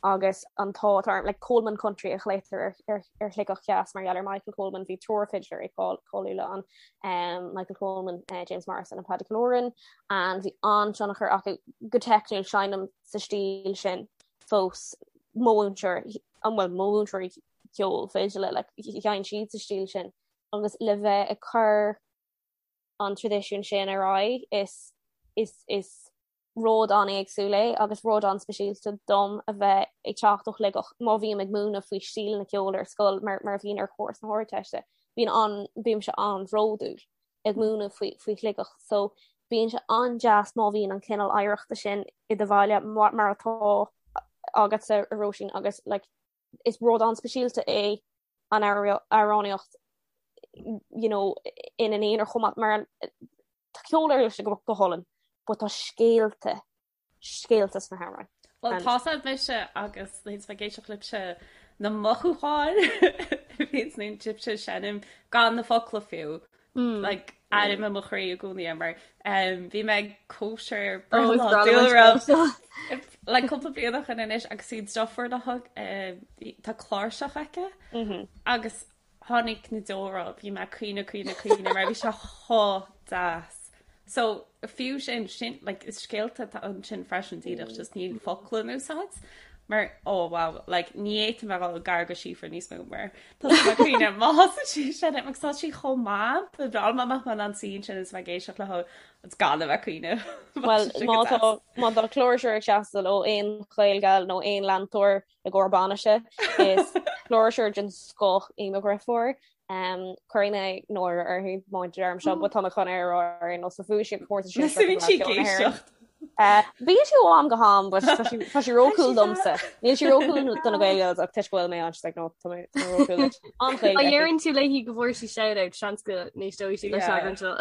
agus an t-ádh atá orm, like Coleman Country a ghlaotar ar ar ar Shligeach Theas mar gheall ar Michael Coleman, bhí triúr fidléirí cáiliúla ann, um, Michael Coleman, uh, James Morrison and Paddy Killoran, and bhí an-tionchar acu go teicniúil seinnim sa stíl sin fós mo mhúinteoir, an bhfuil mo mhúinteoirí ceoil fidile, like sheinn siad sa stíl sin agus le bheith ag cur an traidisiún sin ar aghaidh is is is rud an-éagsúil é agus rud an-speisialta dom a bheith ag teacht ó Shligeach má bhím ag múineadh faoi stíleanna ceoil ar scoil mar mar a bhíonn ar chúrsa na hArdteiste bíonn an bímse an-bhródúil ag múineadh faoi faoi Shligeach so bíonn sé an-deas má bhíonn an cineál oidhreachta sin i do bhaile mar mar atá agatsa a Róisín agus like is rud an-speisialta é an amhránaíocht you know, ina n-aonar chomh maith mar tá ceol uirlise go go hálainn, but tá scéalta scéalta sna hamhráin. Well tá sé mise agus nuair ag éisteacht libhse na mothúcháin a bhíonn nuair atá sibhse ag seinm gan na focla fiú. Like airím i mo chroí i gcónaí é mar bhí mé ag cóisir breithlá dúlra like cúpla bliain ó shin anois agus bhí deirfiúr liom tá cláirseach aici agus tháinig na deora bhí mé ag caoineadh caoineadh caoineadh mar bhí sé chomh deas. So fiú sin sin like is scéalta atá ansin freisin díreach just níl focla in úsáid. Mar oh wow like ní fhéadfainn a dhul gar do Síofra níos mó mar tá mé ag cuimhneamh má thosaíonn sí ag seinm agus tá sí chomh maith ba bhreá liom dá mbeadh mé in ann suí ansin is bheith ag éisteacht léi agus gan a bheith ag cuimhneamh. Well má tá má tá cláirseoir ag teastáil ó aon Ghaelgal nó aon leantóir i gcomhair bainise is cláirseoir den scoth í mo dheirfiúr. Um, Cuirfidh mé náire uirthi má deirim seo, but tá mé chun é a rá ar aon nós, so bhuaigh sí an comórtas sin seo Bíonn sí ag éisteacht. Uh, Bíonn sí ó am go ham, but tá sí tá sí rócool domsa. Níl sí rócool do na Gaelgals ach toisc go bhfuil mé ann, she's like, no, tá mé tá mé rócool duit. An-Ghaeilge Má aici. dheireann tú léi go bhfuair sí shout-out, seans go n-éisteoidh sí leis Yeah. an seo.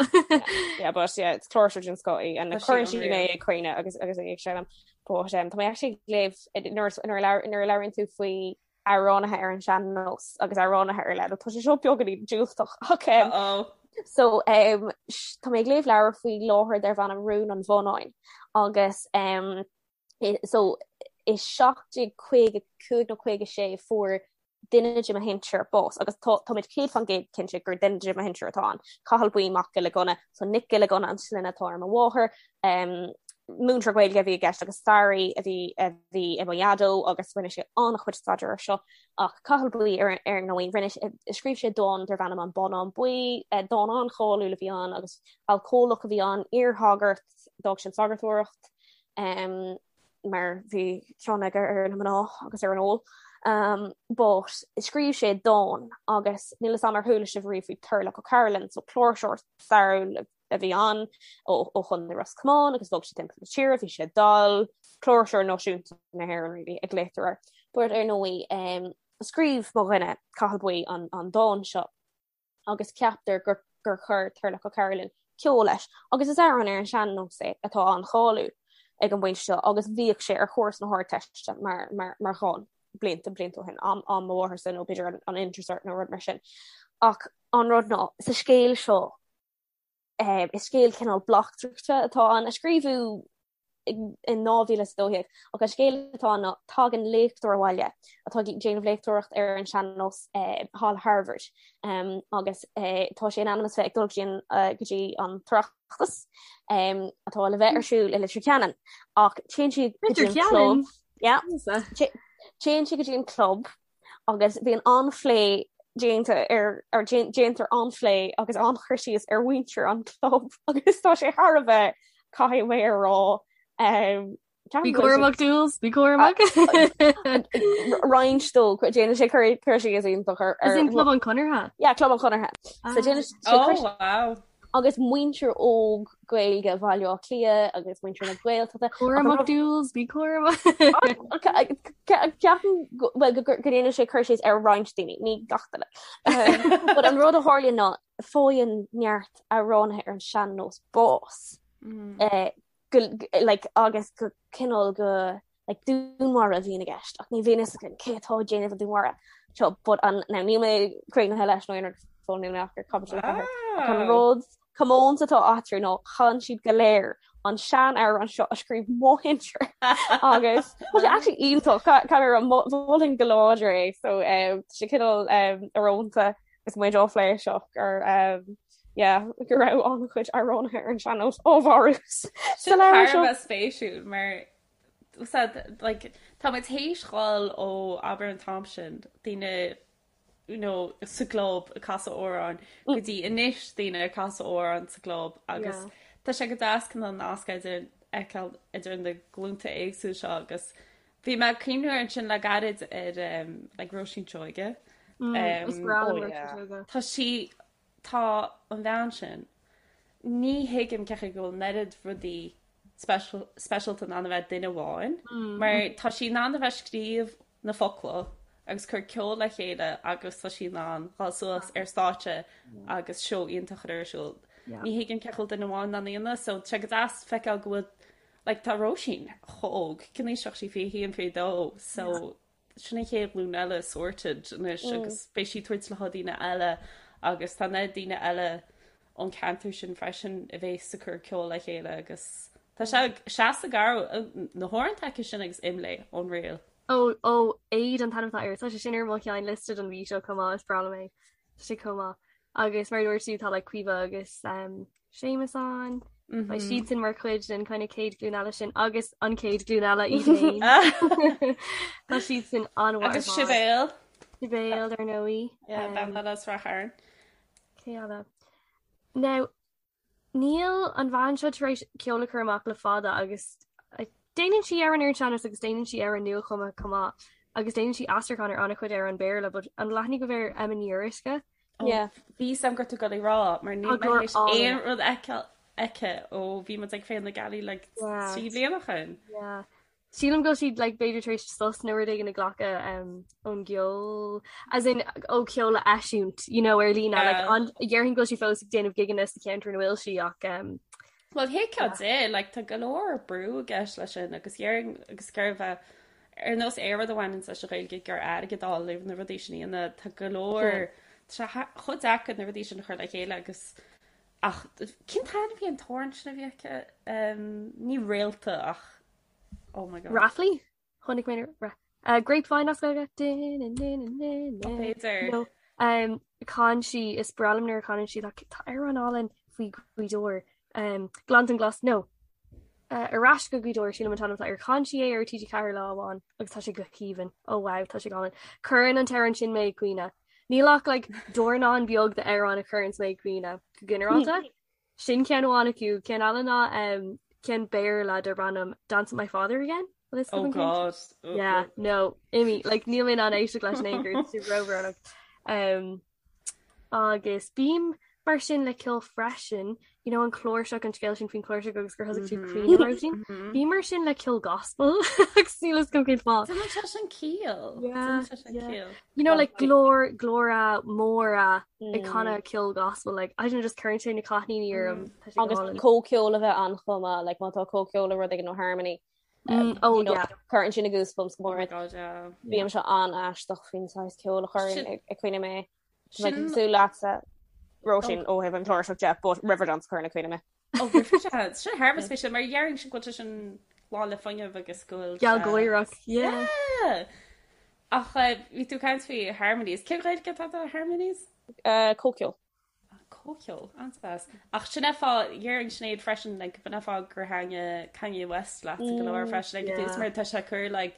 Yeah, but yeah, it's cláirseoir den scoth í, and Tá sí cuireann sí mé unreal. ag caoineadh agus agus í ag seinm. But um, tá mé actually ag léamh nuair nuair a labhair- nuair a labhraíonn tú faoi amhránaithe ar an sean-nós agus amhránaithe ar leith. Tá sé seo beagáinín diúltach ach um, Uh-oh. so um, tá mé ag léamh leabhar faoi láthair darb ainm Rún an Bhonnáin agus um, so i 1755 nó 56 fuair duine de mo shinsir bás agus táimid 100% cinnte gur duine de mo shinsir atá ann. Cathal Buí Mac Giolla Gunna, so Nic Giolla Gunna an sloinne atá ar mo mháthair, um, múinteoir Gaeilge a bhí i gceist agus staraí a bhí a bhí i mo dhaideo agus rinne sé an-chuid staidéir ar seo ach Cathal Buí ar ar ndóigh rinne scríobh sé dán darb ainm An Bonnán Buí, eh, dán an-cháiliúil a bhí ann agus alcólach a bhí ann, iarshagart, d'fhág sé an sagartóireacht um, mar bhí cion aige ar na mná agus ar an ól. Um, but scríobh sé dán agus níl a fhios agam ar chuala sibh riamh faoi Turlough O'Carolan, so cláirseoir stairiúil a bhí ann ó Chontae Ros Comáin agus bhog sé timpeall na tíre, bhí sé dall, cláirseoir náisiúnta na hÉireann really a ghlaotar air. But ar ndóigh um, scríobh mo dhuine Cathal Buí an, an dán seo agus ceaptar gur, gur chuir Turlough O'Carolan ceol leis agus is amhrán ar an sean-nós é atá an-cháiliúil ag an bpointe seo agus bhíodh sé ar chúrsa na hArdteiste mar, mar, mar dhán blianta blianta ó shin am, am mo mhátharsa nó b'fhéidir an, an Intercert nó rud mar sin. Ach an rud ná sa scéal seo Is scéal cineál bleachtaireachta atá ann, a scríobhadh in 2012, ach an scéal atá ann ná tagann léachtóir abhaile atá ag déanamh léachtóireacht ar an sean-nós thall i Harvard agus tá sé in ainm is bheith ag dul go dtí an tOireachtas atá le bheith ar siúl i Leitir Ceanainn ach téann sí go dtí an club. Téann sí go dtí an club agus bíonn an-phlé déanta ar ar déantar an-phlé agus an-chur síos ar mhuintir an chlub agus tá sé thar a bheith caithfidh mé a rá um, Bí cúramach Jules, bí cúramach. Roinnt dó déanann sé cur cur síos iontach ar Is in Club an Chonartha? Yeah, Club an Chonartha. So déanann sé Oh wow. agus muintir óg Gaeilge Bhaile Átha Cliath agus muintir na Gaeltachta. Cúramach Jules, bí cúramach. Ceapaim well go ndéanann sé cur síos ar roinnt daoine, ní gach duine. But an rud a tharlaíonn ná faigheann neart amhránaithe ar an sean-nós bás. Mm. Go, like, agus go cineál go like dúnmharú a bhíonn i gceist ach ní bhíonn fhios againn cé atá ag déanamh an dúnmharú seo but an now níl mé críochnaithe leis nó aon rud fós níl mé ach ar caibidil 4 ach an rud comónta atá eatarthu ná chan siad go léir an sean-amhrán seo a scríobh mo shinsear agus tá sé actually iontach caithfidh mé a rá mholfainn go láidir é so um, tá sé cineál um, íorónta agus muid á phlé seo gur um, yeah, go raibh an-chuid amhránaithe ar an sean-nós á mharú sa leabhar seo. Sin thar a bheith spéisiúil mar said like tá muid théis dhul ó abair an t-am sin daoine you know sa gclub ag casadh amhráin go dtí anois daoine ag casadh amhráin sa gclub agus yeah. tá sé go deas cineál an nasc idir fheiceáil idir na glúnta éagsúla seo agus bhí mé ag cuimhneamh air ansin le gairid ar um, like Róisín Seoige. Mm, um, oh, yeah. Tá sí tá an bhean sin ní thuigim cén chaoi go bhfuil an oiread rudaí speisialta in ann a bheith ag duine amháin, mar tá sí in ann a bheith ag scríobh na focla agus cur ceol le chéile agus tá sí in ann dhul suas ar stáitse agus seó iontach a chur ar siúl. Ní thuigim cén chaoi a bhfuil duine amháin in ann a dhéanamh, so tá sé go deas feiceáil go bhfuil like tá Róisín chomh óg, cén aois atá sí 21, 22, so sin an chéad ghlúin eile sorted anois agus beidh sí ag tabhairt le daoine eile agus tá na daoine eile ón ceantar sin freisin a bhéas ag cur ceol le chéile agus tá sé seasta garbh na hamhráin aici sin agus Imlé unreal. Ó ó Aid an t-ainm atá air tá sé sin ar mo sheinnliosta don mhí seo chomh maith is breá liom é. Tá sé chomh maith. Agus mar a dúirt tú tá like Caoimhe agus um, Séamus ann. Beidh siadsan mar chuid den kind of chéad ghlúin eile sin agus an chéad ghlúin eile iad féin. Tá siadsan an-mhaith Agus Sibéal. Sibéal ar ndóigh. Yeah, bean eile as Ráth Chairn. Cé eile? Now, níl an bhean seo tar éis ceol a chur amach le fada agus déanann sí amhráin ar an sean-nós agus déanann sí amhráin nuachumtha chomh maith agus déanann sí aistriúchán ar an-chuid amhrán Béarla, but an bhfuil aithne agaibh ar Emma Ní Fhíoruisce? Yeah. Bhí 'fhios a'm go raibh tú ag dul a rá mar níl mé théis aon rud a fheiceáil aici ó bhí muid ag Féile na Gealaí like 3 bliana ó shin. Yeah. Sílim go bhfuil sí like b'fhéidir tar éis sos nó rud éigin a ghlacadh um, ón gceol as in ó ceol a eisiúint you know, ar líne like, an déarfainn go bhfuil sí fós ag déanamh gigeanna sa cheantar ina bhfuil sí ach um, Well thuigfeá di, like, tá go leor brú i gceist leis sin agus dhéarfainn agus gurbh é ar nós aon rud a bhaineann leis an Ghaeilge gur airgead a fháil le na rudaí sin a dhéanamh, tá go leor tá sé chomh deacair na rudaí sin a chur le chéile agus ach cén t-ainm a bhí an t-amhrán sin a bhí aici? Um, ní réalta ach oh my god. Raflaí? Chonaic mé uh, Grapevine as Gaeilge. B'fhéidir. No, um, chan sí is breá liom nuair a chanann sí tá amhrán álainn faoi Ghaoth Dobhair. Um, Gleanntan Glas no. Uh, ar ais go Gaoth Dobhair sílim an t-ainm atá air chan sí é ar TG4 lá amháin agus tá sé go haoibhinn. Oh wow, tá sé go hálainn. Cuireann an t-amhrán sin mé ag caoineadh. Níl ach like, dornán beag d'amhráin a chuireann mé ag caoineadh go ginearálta. Sin ceann amháin acu, ceann eile ná ceann Béarla darb ainm Dance with My Father Again. Oh God. Yeah, no, imigh, like níl mé in ann éisteacht leis in aon chor, tá sé róbhrónach. Um, agus bím mar sin le ceol freisin, you know, an cláirseach an scéal sin faoin chláirseach agus gur thosaigh tú ag caoineadh Róisín. Bím mar sin le ceol gospel agus níl a fhios agam cén fáth. Déanann sé sin ciall. Déanann sé sin ciall. You know, like glór glóra móra ag canadh ceol gospel like I don't know just cuireann sé na cáithníní orm Tá sé go Agus hálainn. comhcheol a bheith ann chomh maith, like má tá comhcheol nó rud éigin nó harmony Mm, oh you know, yeah. cuireann sin na goosebumps go mór. Oh God, yeah. Bímse an-aisteach faoin saghas ceol a chuireann Sin- ag ag caoineadh mé. Tá mé Sin- cosúil leatsa Róisín ó thaobh an chláirseach de, but Riverdance cuireann ag caoineadh mé. Oh, Riverdance. Sin thar a bheith spéisiúil mar déarfainnse go bhfuil sé sin lán le fuinneamh agus go bhfuil sé- Gealgháireach, yeah. Yeah. Ach bhí tú ag caint faoi harmonies. Cén Ghaeilge atá do harmonies? Comhcheol. Comhcheol, an-deas. Ach sin é fáth, dhéarfainn Sinéad freisin, like, b'in é fáth gur thaitnigh Kanye West leat go leor freisin ag an tús mar tá sé ag cur like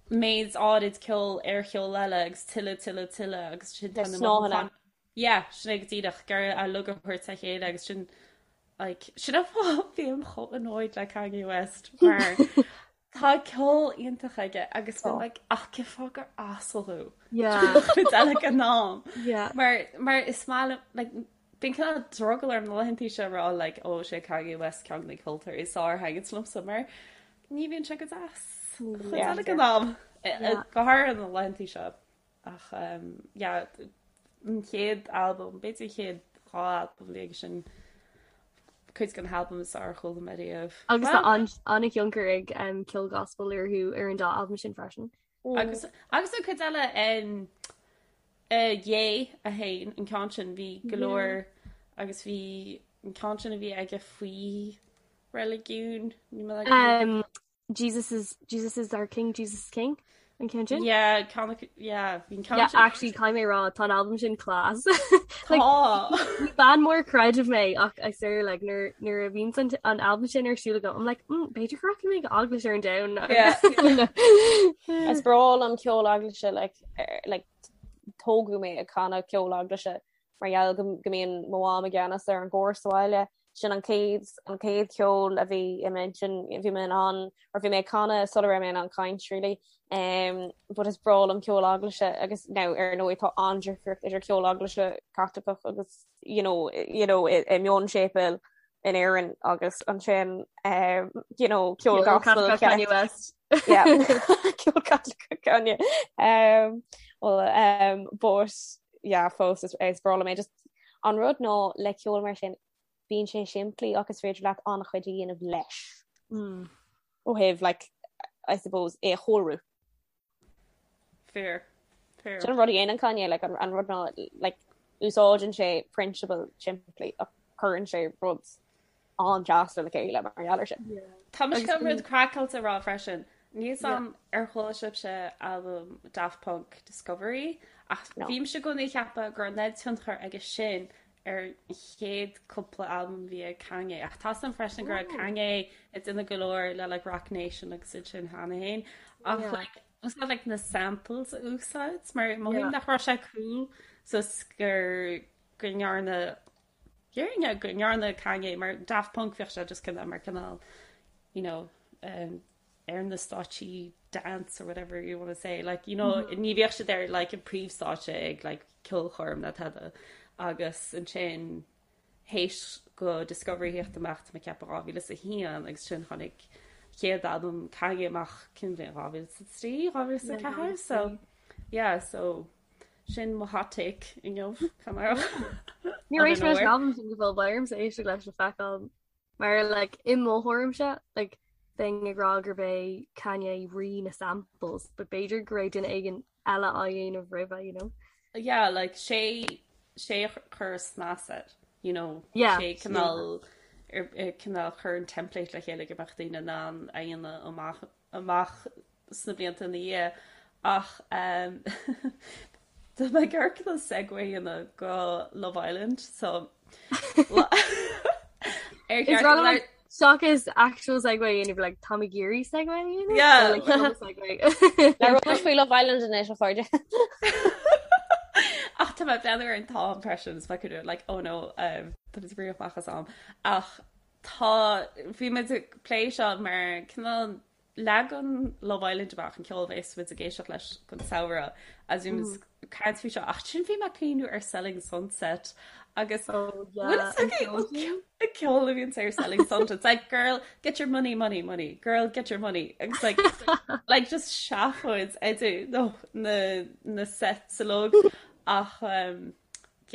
méid áirid ceoil ar cheol eile agus tuilleadh, tuilleadh, tuilleadh agus sin tá na mothúcháin. Yeah, sin é go díreach, gur a lug a thabhairt le chéile agus sin like sin é fáth bím chomh annoyed le Kanye West mar Tá ceol iontach aige agus bím like ach cén fáth gur asal thú? Yeah. Cuid eile den am. Yeah. Mar mar is maith liom like bíonn cineál drogall orm na laethanta seo a rá like ó sé Kanye West ceann de na ceoltóirí is fearr a thaitníonn liomsa mar ní bhíonn sé go deas. Cuid eile den am. Go háirithe na laethanta seo. Ach yeah, an chéad albam, b'fhéidir an chéad dá albam a bhí aige sin, cuid de na halbaim is fearr a chuala mé riamh. Agus tá an-thionchar ag ceol gospel orthu ar an dá albam sin freisin. Agus agus an cuid eile um, uh, Ye a haon, an ceann sin bhí go leor agus bhí an ceann sin a bhí aige faoi reiligiún, ní mé um, Jesus is Jesus is our king, Jesus is king an ceann sin? Yeah, ceann yeah, bhí an ceann Yeah, sin. actually caithfidh mé rá tá an album sin class. Like, Tá. ní bean mór creidimh mé ach I swear like nuair nuair a bhíonn an an album sin ar siúl agam I'm like mm, b'fhéidir go rachaidh mé go eaglais ar an Domhnach. Yeah. Is breá liom ceol eaglaise like, er, like tógadh mé ag canadh ceol eaglaise mar gheall go go mbíonn mo mham i gceannas ar an gcór sa bhaile. Sin an chéad an chéad cheol a bhí i m'intinn, bhí mé in ann or bhí mé ag canadh sula raibh mé in ann caint really. Um, but is breá liom ceol eaglaise agus now ar ndóigh tá an-difríocht idir ceol eaglaise Caitliceach agus you know, you know, i, i mionséipéal in Éirinn agus ansin um, you know, ceol gospel Kanye West. Yeah. Ceol Caitliceach Kanye. Um, well, um, but yeah, fós is, is breá liom é. Just an rud ná le ceol mar sin bíonn sé simplí ach is féidir leat an-chuid a dhéanamh leis. Mm. Ó thaobh like, I suppose é a chóiriú. Fair. Fair. Sin an rud a dhéanann Kanye like, an, an rud ná like, úsáideann sé prionsabal simplí ach cuireann sé rud an-deas le chéile mar gheall air sin. Tá mise chun rud craiceáilte a rá freisin. Níl 'fhios a'm ar chuala sibhse albam Daft Punk Discovery ach No. bhímse i gcónaí ag ceapadh go raibh an oiread tionchar aige sin. ar an chéad cúpla albam a bhí ag Kanye ach tá a fhios agam freisin go raibh Kanye ag déanamh go leor le like Roc Nation agus iad sin cheana féin ach like úsáid like na samples a úsáid mar mothaím nach raibh sé cool so gur go ndearna dhéarfainn go ndearna Kanye mar Daft Punk bhíodh sé just cineál mar cineál you know um, ar na stáitsí dance or whatever you want to say like you know mm -hmm. ní bhíodh siad ar like an príomhstáitse ag like ceolchoirm ná tada agus ansin théis go Discovery theacht amach tá mé ag ceapadh 2001 agus sin tháinig chéad albam Kanye amach cén bhliain 2003 2004 so yeah so sin mo hot take inniu Níor éist mé leis an albam sin go fóill beidh ormsa éisteacht leis le feiceáil Mar like i mo thuairimse like bheinn ag rá gurb é Kanye rí na samples but b'fhéidir go raibh duine éigin eile á dhéanamh roimhe you know. Yeah like sé sé a chuir snas air you know yeah, sé cineál yeah. cineál chuir an template le chéile go mbeadh daoine in ann a dhéanamh amach amach sna blianta ina dhiaidh ach tá mé ag amharc le segue a dhéanamh go Love Island so ar Is rud like seachas actual segue a dhéanamh like tá mé ag iarraidh segue a dhéanamh Yeah. So, like, no segue. Labhróidh faoi Love Island anois a chairde. Ach tá mé ag breathnú ar an t-am freisin is mé like oh no um, tá mé ag rith amach as am ach tá bhí muid ag plé seo mar cineál Leagann Love Island amach an ceol a bheas muid ag éisteacht leis don samhradh agus bhí muid ag caint faoi seo ach ansin bhí mé ag cuimhniú ar Selling Sunset agus Oh yeah, bhfuil fhios agaibh an ceol a bhíonn ar Selling Sunset it's like girl get your money money money girl get your money agus like like just seafóid idir no na na sets uilig ach um,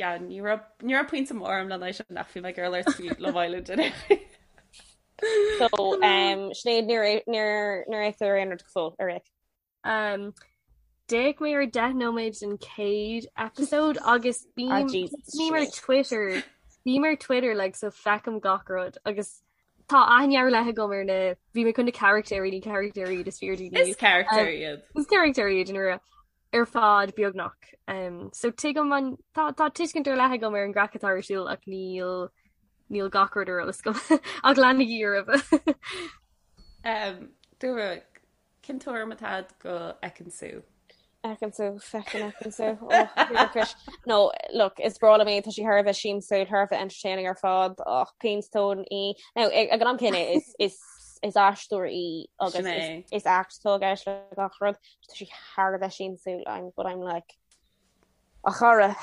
yeah, ní raibh ní raibh pointe mór agam lena aghaidh sin ach bhí mé ag iarraidh labhairt faoi Love Island anyway. So um, Sinéad níor níor níor fhéach tú ar aon rud go fóill ar fhéach. Um, D'fhéach mé ar 10 nóiméad den chéad episode agus bím Ah, Jesus, bím ar Sinéad. Twitter bím ar Twitter like so feicim gach rud agus tá aithne ar leith agam ar na bhí mé chun na carachtéirí ní carachtéirí iad is fíor Is character iad. Is carachtéirí iad in ar fad beagnach. Um, so tuigim an tá tá tuiscint ar leith agam ar an gcraic atá ar siúl ach níl níl gach rud ar eolas agam ach leanaigí oraibh. Um, Dúra, cén tuairim atá agat go Ekin-Su? Ekin-Su, feckin Ekin-Su. Oh, Chris. No, look, is breá liom í, tá sí thar a bheith siamsúil, thar a bheith entertaining ar fad, ach péinstón í. Now, ag an am céanna, is, is, is aisteoir í agus Sin é. is, is act atá i gceist le gach rud. Tá sí thar a bheith siamsúil, I'm, but I'm like, a chara,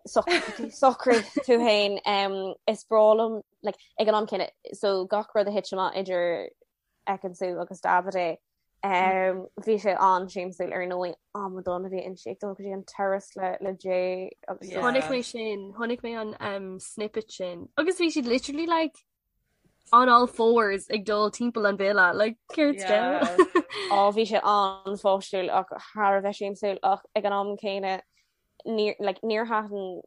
socraigh tú féin, um, is breá liom, like, ag an am céanna, so gach rud a thit amach idir Ekin-Su agus Davide, um, bhí sé an-siamsúil ar ndóigh, amadán a bhí inti ag dul go dtí an terrace le, le Jay agus Yeah. Chonaic mé sin, chonaic mé an um, snippet sin. Agus bhí siad literally like on all fours ag dul timpeall an villa like céard Yeah. Á bhí sé an-pháistiúil ach thar a bheith siamsúil ach ag an am céanna níor like, níor thaitin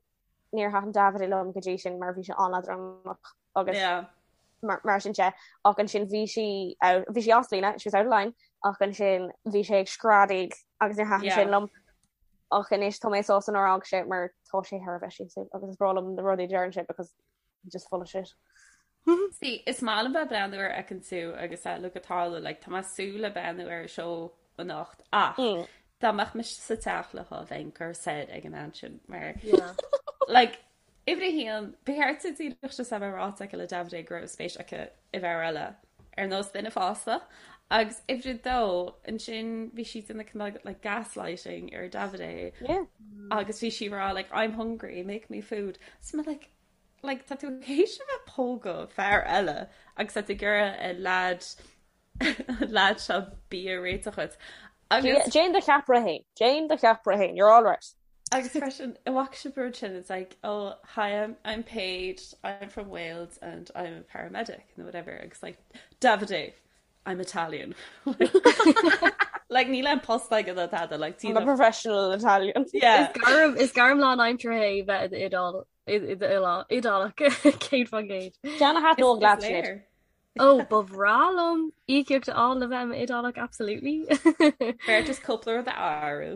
níor thaitin Davide liom go dtí sin mar bhí sé an-leadránach agus Yeah. mar, mar sin de ach ansin bhí sí out, bhí sí as líne, she was out of line ach ansin bhí sé ag screadaíl agus níor thaitin Yeah. sin liom ach anois tá mé sásta nár fhág sé mar tá sé thar a bheith siamsúil agus is breá liom na rudaí a deireann sé because just full of shit. See, is maith liom bheith ag breathnú ar Ekin-Su agus eh, Luca Tarlo, like, tá mé ag súil le breathnú ar an seó anocht ach Mm. dá mbeadh mise sa teach leo bheinn curtha soir ag an am sin mar Yeah. like, uimhir a haon, ba cheart di díreach just a bheith ráite aici le Davide go raibh spéis aici i bhfear eile ar nós duine fásta agus uimhir a dó ansin bhí sí ag déanamh cineál like gaslighting ar Davide Yeah. agus bhí sí ag rá like I'm hungry, make me food. So mé like like tá tú théis a bheith ag pógadh fear eile agus tá tú ag iarraidh an lad an lad seo bia a réiteach dhuit. Agus Déan do cheapaire féin. Déan do cheapaire féin. You're all right. Agus freisin an bhfaca sibh an rud sin it's like oh hi I'm I'm Paige I'm from Wales and I'm a paramedic nó whatever agus like Davide I'm Italian like níl aon post aige ná tada like I'm a professional Italian. Yeah. Is gairm is gairm lánaimseartha é bheith i d'Iodál Iodálach 100%. Déan a thaitneodh leat Sinéad. Ó ba bhreá liom íocaíocht a fháil le bheith i m'Iodálach absolutely. B'fhearr just cúpla rud a athrú.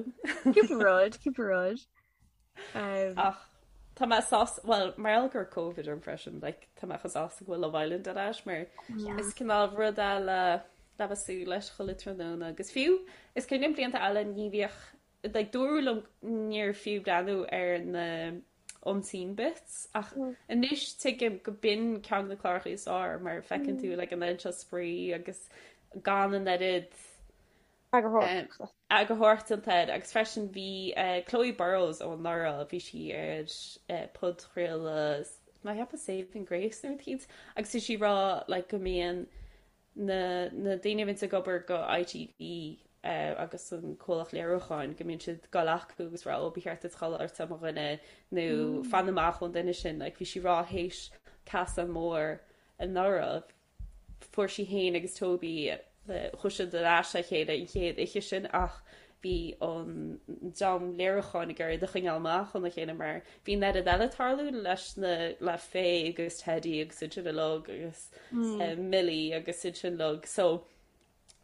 Cúpla rud, cúpla rud. Um, Ach. Tá mé sásta, bhuel, mar gheall go raibh Covid orm freisin, like, tá mé chomh sásta go bhfuil Love Island ar ais mar is cineál rud eile le bheith ag súil leis chuile tráthnóna agus fiú is cuimhin liom blianta eile ní bhíodh, like, dúradh liom níor fiú breathnú ar na unseen bits ach anois tuigim go b'in ceann de na cláracha is fearr mar feiceann tú like an oiread seo spraoi agus gan an oiread Eagarthóireachta. Eagarthóireacht déanta air agus freisin bhí Chloe Burrows ó anuraidh, bhí sí ar podchraoladh, mé ag ceapadh Saving Grace nó rud eicínt, agus bhí sí ag rá like go mbíonn na na daoine a bhíonns ag obair go ITV agus an comhlacht léiriúcháin go mbíonn siad ag dul acu agus rá ó ba cheart duit dhul ort mo dhuine nó fan amach ón duine sin like bhí sí ag rá théis casadh mór anuraidh Fuair sí féin agus Toby, chuaigh siad ar ais le chéile an chéad oíche sin ach bhí an dream léiriúcháin ag iarraidh iad a choinneáil amach óna chéile mar bhí an oiread eile ag tarlú leis na, le Faye agus Teddy agus iad sin uilig agus Millie agus iad sin uilig so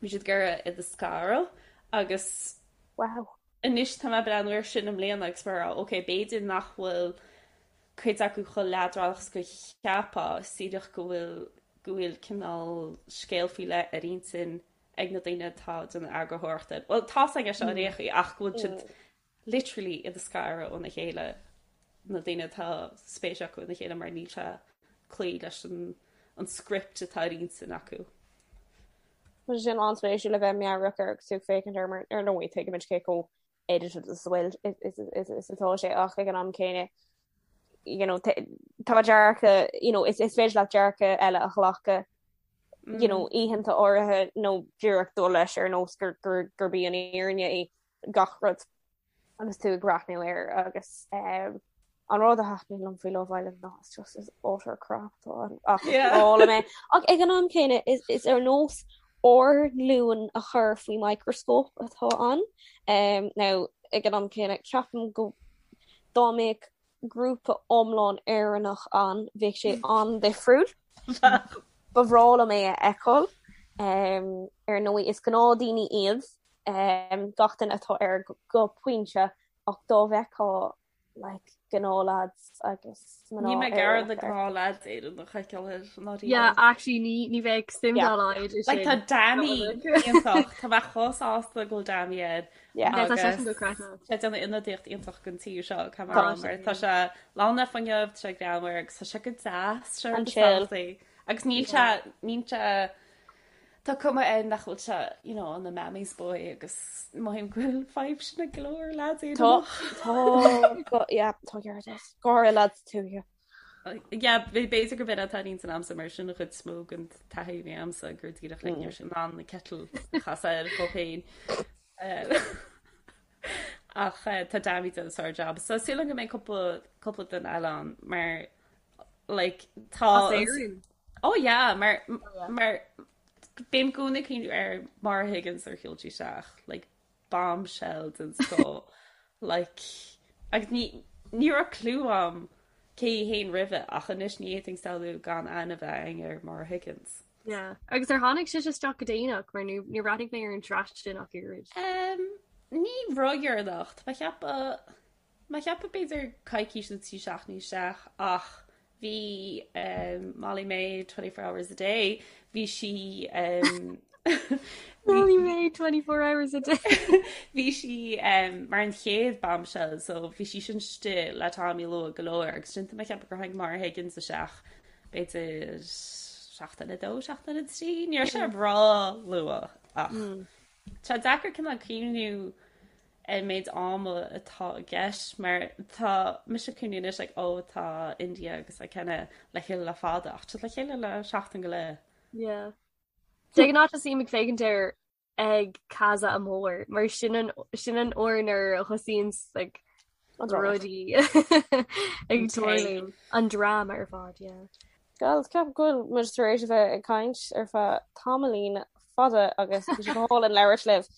bhí siad ag iarraidh iad a scaradh agus Wow. anois tá mé ag breathnú air sin i mbliana agus mar ok b'fhéidir nach bhfuil cuid acu chomh leadránach is go cheapfá, is díreach go bhfuil go bhfuil cineál scéal faoi leith ar intinn ag na daoine atá ag déanamh eagarthóireachta. Bhuel, tá's againn é seo ar aon chaoi ach go bhfuil siad literally iad a scaradh óna chéile, na daoine atá spéis acu ina chéile mar níl sé ag cloí leis an an script atá ar intinn acu. Tá sé sin an-spéisiúil le bheith meabhrach air agus tú ag féachaint air mar ar ndóigh tuigimid cé chomh edited is a bhfuil is atá sé ach ag an am céanna you know tá dearcadh you know is is féidir leat dearcadh eile a ghlacadh you know mm. oícheanta áirithe nó díreach dul leis ar nós gur gur gurb í an fhírinne í gach rud agus tú ag breathnú air agus um, an rud a thaitníonn liom faoi Love Island ná it's just is utter crap atá ann ach is breá liom é. Ach ag an am céanna is is ar nós ár nglúin a chur faoi microscope atá ann. Um, now ag an am céanna ceapaim go dá mbeadh grúpa iomlán Éireannach ann bheadh sé an-difriúil. Ba bhreá liom é a fheiceáil. Um, ar ndóigh is gnáthdaoine iad um, gach duine atá air go, go pointe ach dá bhfeicfeá like gnáth-lads agus mná Níl mé ag iarraidh na gnáth-lads Éireannach a fheiceáil air ná riamh. Yeah, actually ní ní bheadh suim dá laghad i Like tá sin. Dami iontach, tá mé chomh sásta go bhfuil Dami air Yeah. Yeah, tá agus seisean dochreidte. sé ag déanamh ionadaíocht iontach don tír seo Tá mar sé. mar tá sé lán le fuinneamh, tá sé greannmhar agus tá sé go deas, sé An rud is chill. tábhachtaí. Agus níl sé níl sé Tá cuma air nach bhfuil sé, you know, ina mammy's boy agus mothaím go bhfuil fadhb sin ag go leor lads Tá, Éireannach. tá, go, yeah, tá ceart agat. Go háirithe lads tuaithe. Yeah, b'fhéidir gurb in atá ar intinn a'msa mar sin an chuid is mó den taithí a bhí a'msa gur díreach like, ní raibh sé in ann an kettle a chasadh air dhó féin. Ach tá Dami ag déanamh sár-jab. So súil agam go mbeidh cúpla cúpla duine eile ann mar like tá As Éirinn? Oh yeah, mar Oh yeah. mar bím i gcónaí ag cuimhniú ar Maura Higgins nuair a shiúil sí isteach, like bombshell den scoth, like agus ní ní raibh clue a'm cé hí féin roimhe ach anois ní fhéadfainn samhlú gan aithne a bheith againn ar Maura Higgins. Yeah. Agus ar tháinig sise isteach go déanach mar ní níor bhreathnaigh mé ar an tsraith sin ach oiread. Um, ní ródheireanach, tá mé ag ceapadh Mé ag ceapadh b'fhéidir coicís nó 3 seachtainí isteach ach bhí Molly-Mae 24 hours a day, bhí sí Molly-Mae 24 hours a day. Bhí sí mar an chéad bombshell so bhí sí sin istigh le Tommy luath go leor agus ansin tá mé ag ceapadh gur tháinig Maura Higgins isteach b'fhéidir seachtain a dó, seachtain a trí, ní raibh sé ró-luath ach tá sé deacair cineál cuimhniú an méid ama atá i gceist mar tá mise ag cuimhniú anois like oh tá India agus Ikenna le chéile le fada ach tá le chéile le seachtain go leith. Yeah. De ghnáth tosaím ag féachaint air ag Casa Amor mar sin an sin an uair nuair a thosaíonn like rudaí ag tarlú an dráma ar fad, yeah. Girls, ceapaim go bhfuil muid tar éis a bheith ag caint ar feadh tamaillín fada agus bhí sé go hálainn labhairt libh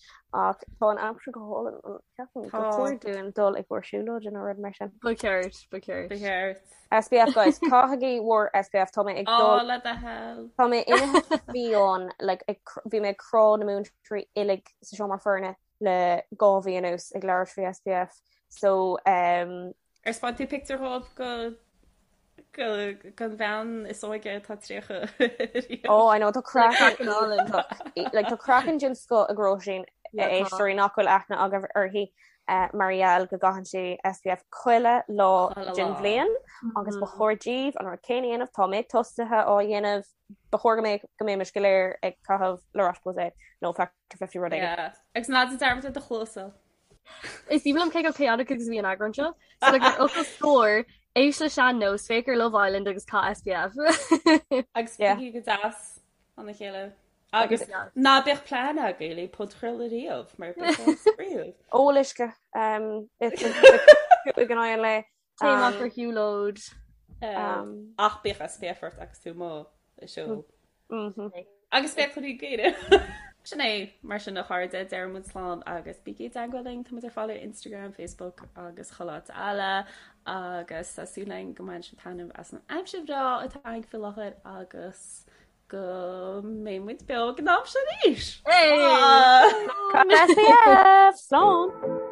ach tá an aimsir go hálainn an ceapaim gur chóir dúinn dul i gcomhair siúlóide nó rud mar sin. Ba cheart, ba cheart. Ba cheart. SPF guys, caithigí bhur SPF tá mé ag dul. Á le do thoil. Tá mé imithe fiáin like bhí mé ag crá na múinteoirí uilig sa seomra foirne le 2 mhí anuas ag labhairt faoi SPF so um. Ar 'speáin tú pictiúr dhóibh go go gon bhean is óige atá 30 riamh? Oh I know tá craiceann like tá craiceann den scoth ag Róisín a éisteoirí nach bhfuil aithne agaibh uirthi mar gheall go gcaitheann sí SPF chuile lá den bhliain agus ba chóir daoibh an rud céanna a dhéanamh, tá mé tosaithe á dhéanamh, ba chóir go mbeadh go mbeimis go léir ag caitheamh La Roche-Posay nó Factor 50 rud éigin. Agus ná déan dearmad ar do chluasa. Is aoibhinn liom cé chomh chaotic agus a bhí an eagrán seo. So like ar fhocal scór, éist le sean nós, féach ar Love Island agus caith SPF. Agus bígí go deas lena chéile. Agus ná bíodh plean agaibh le podchraoladh riamh mar beidh sé spraíúil. Ól uisce ag an aghaidh an lae. Téigh amach ar shiúlóid. Ach bíodh SPF ort agus tú amuigh ag siúl. Agus féach rudaí géire. Sin é, mar sin a chairde, deir muid slán agus bígí i dteagmháil linn, táimid ar fáil ar Instagram, Facebook agus chuile áit eile agus tá súil againn go mbaineann sibh taitneamh as an aimsir bhreá atá againn faoi láthair agus go mbeidh muid beo ag an am sin arís! Hey! SPF! Slán!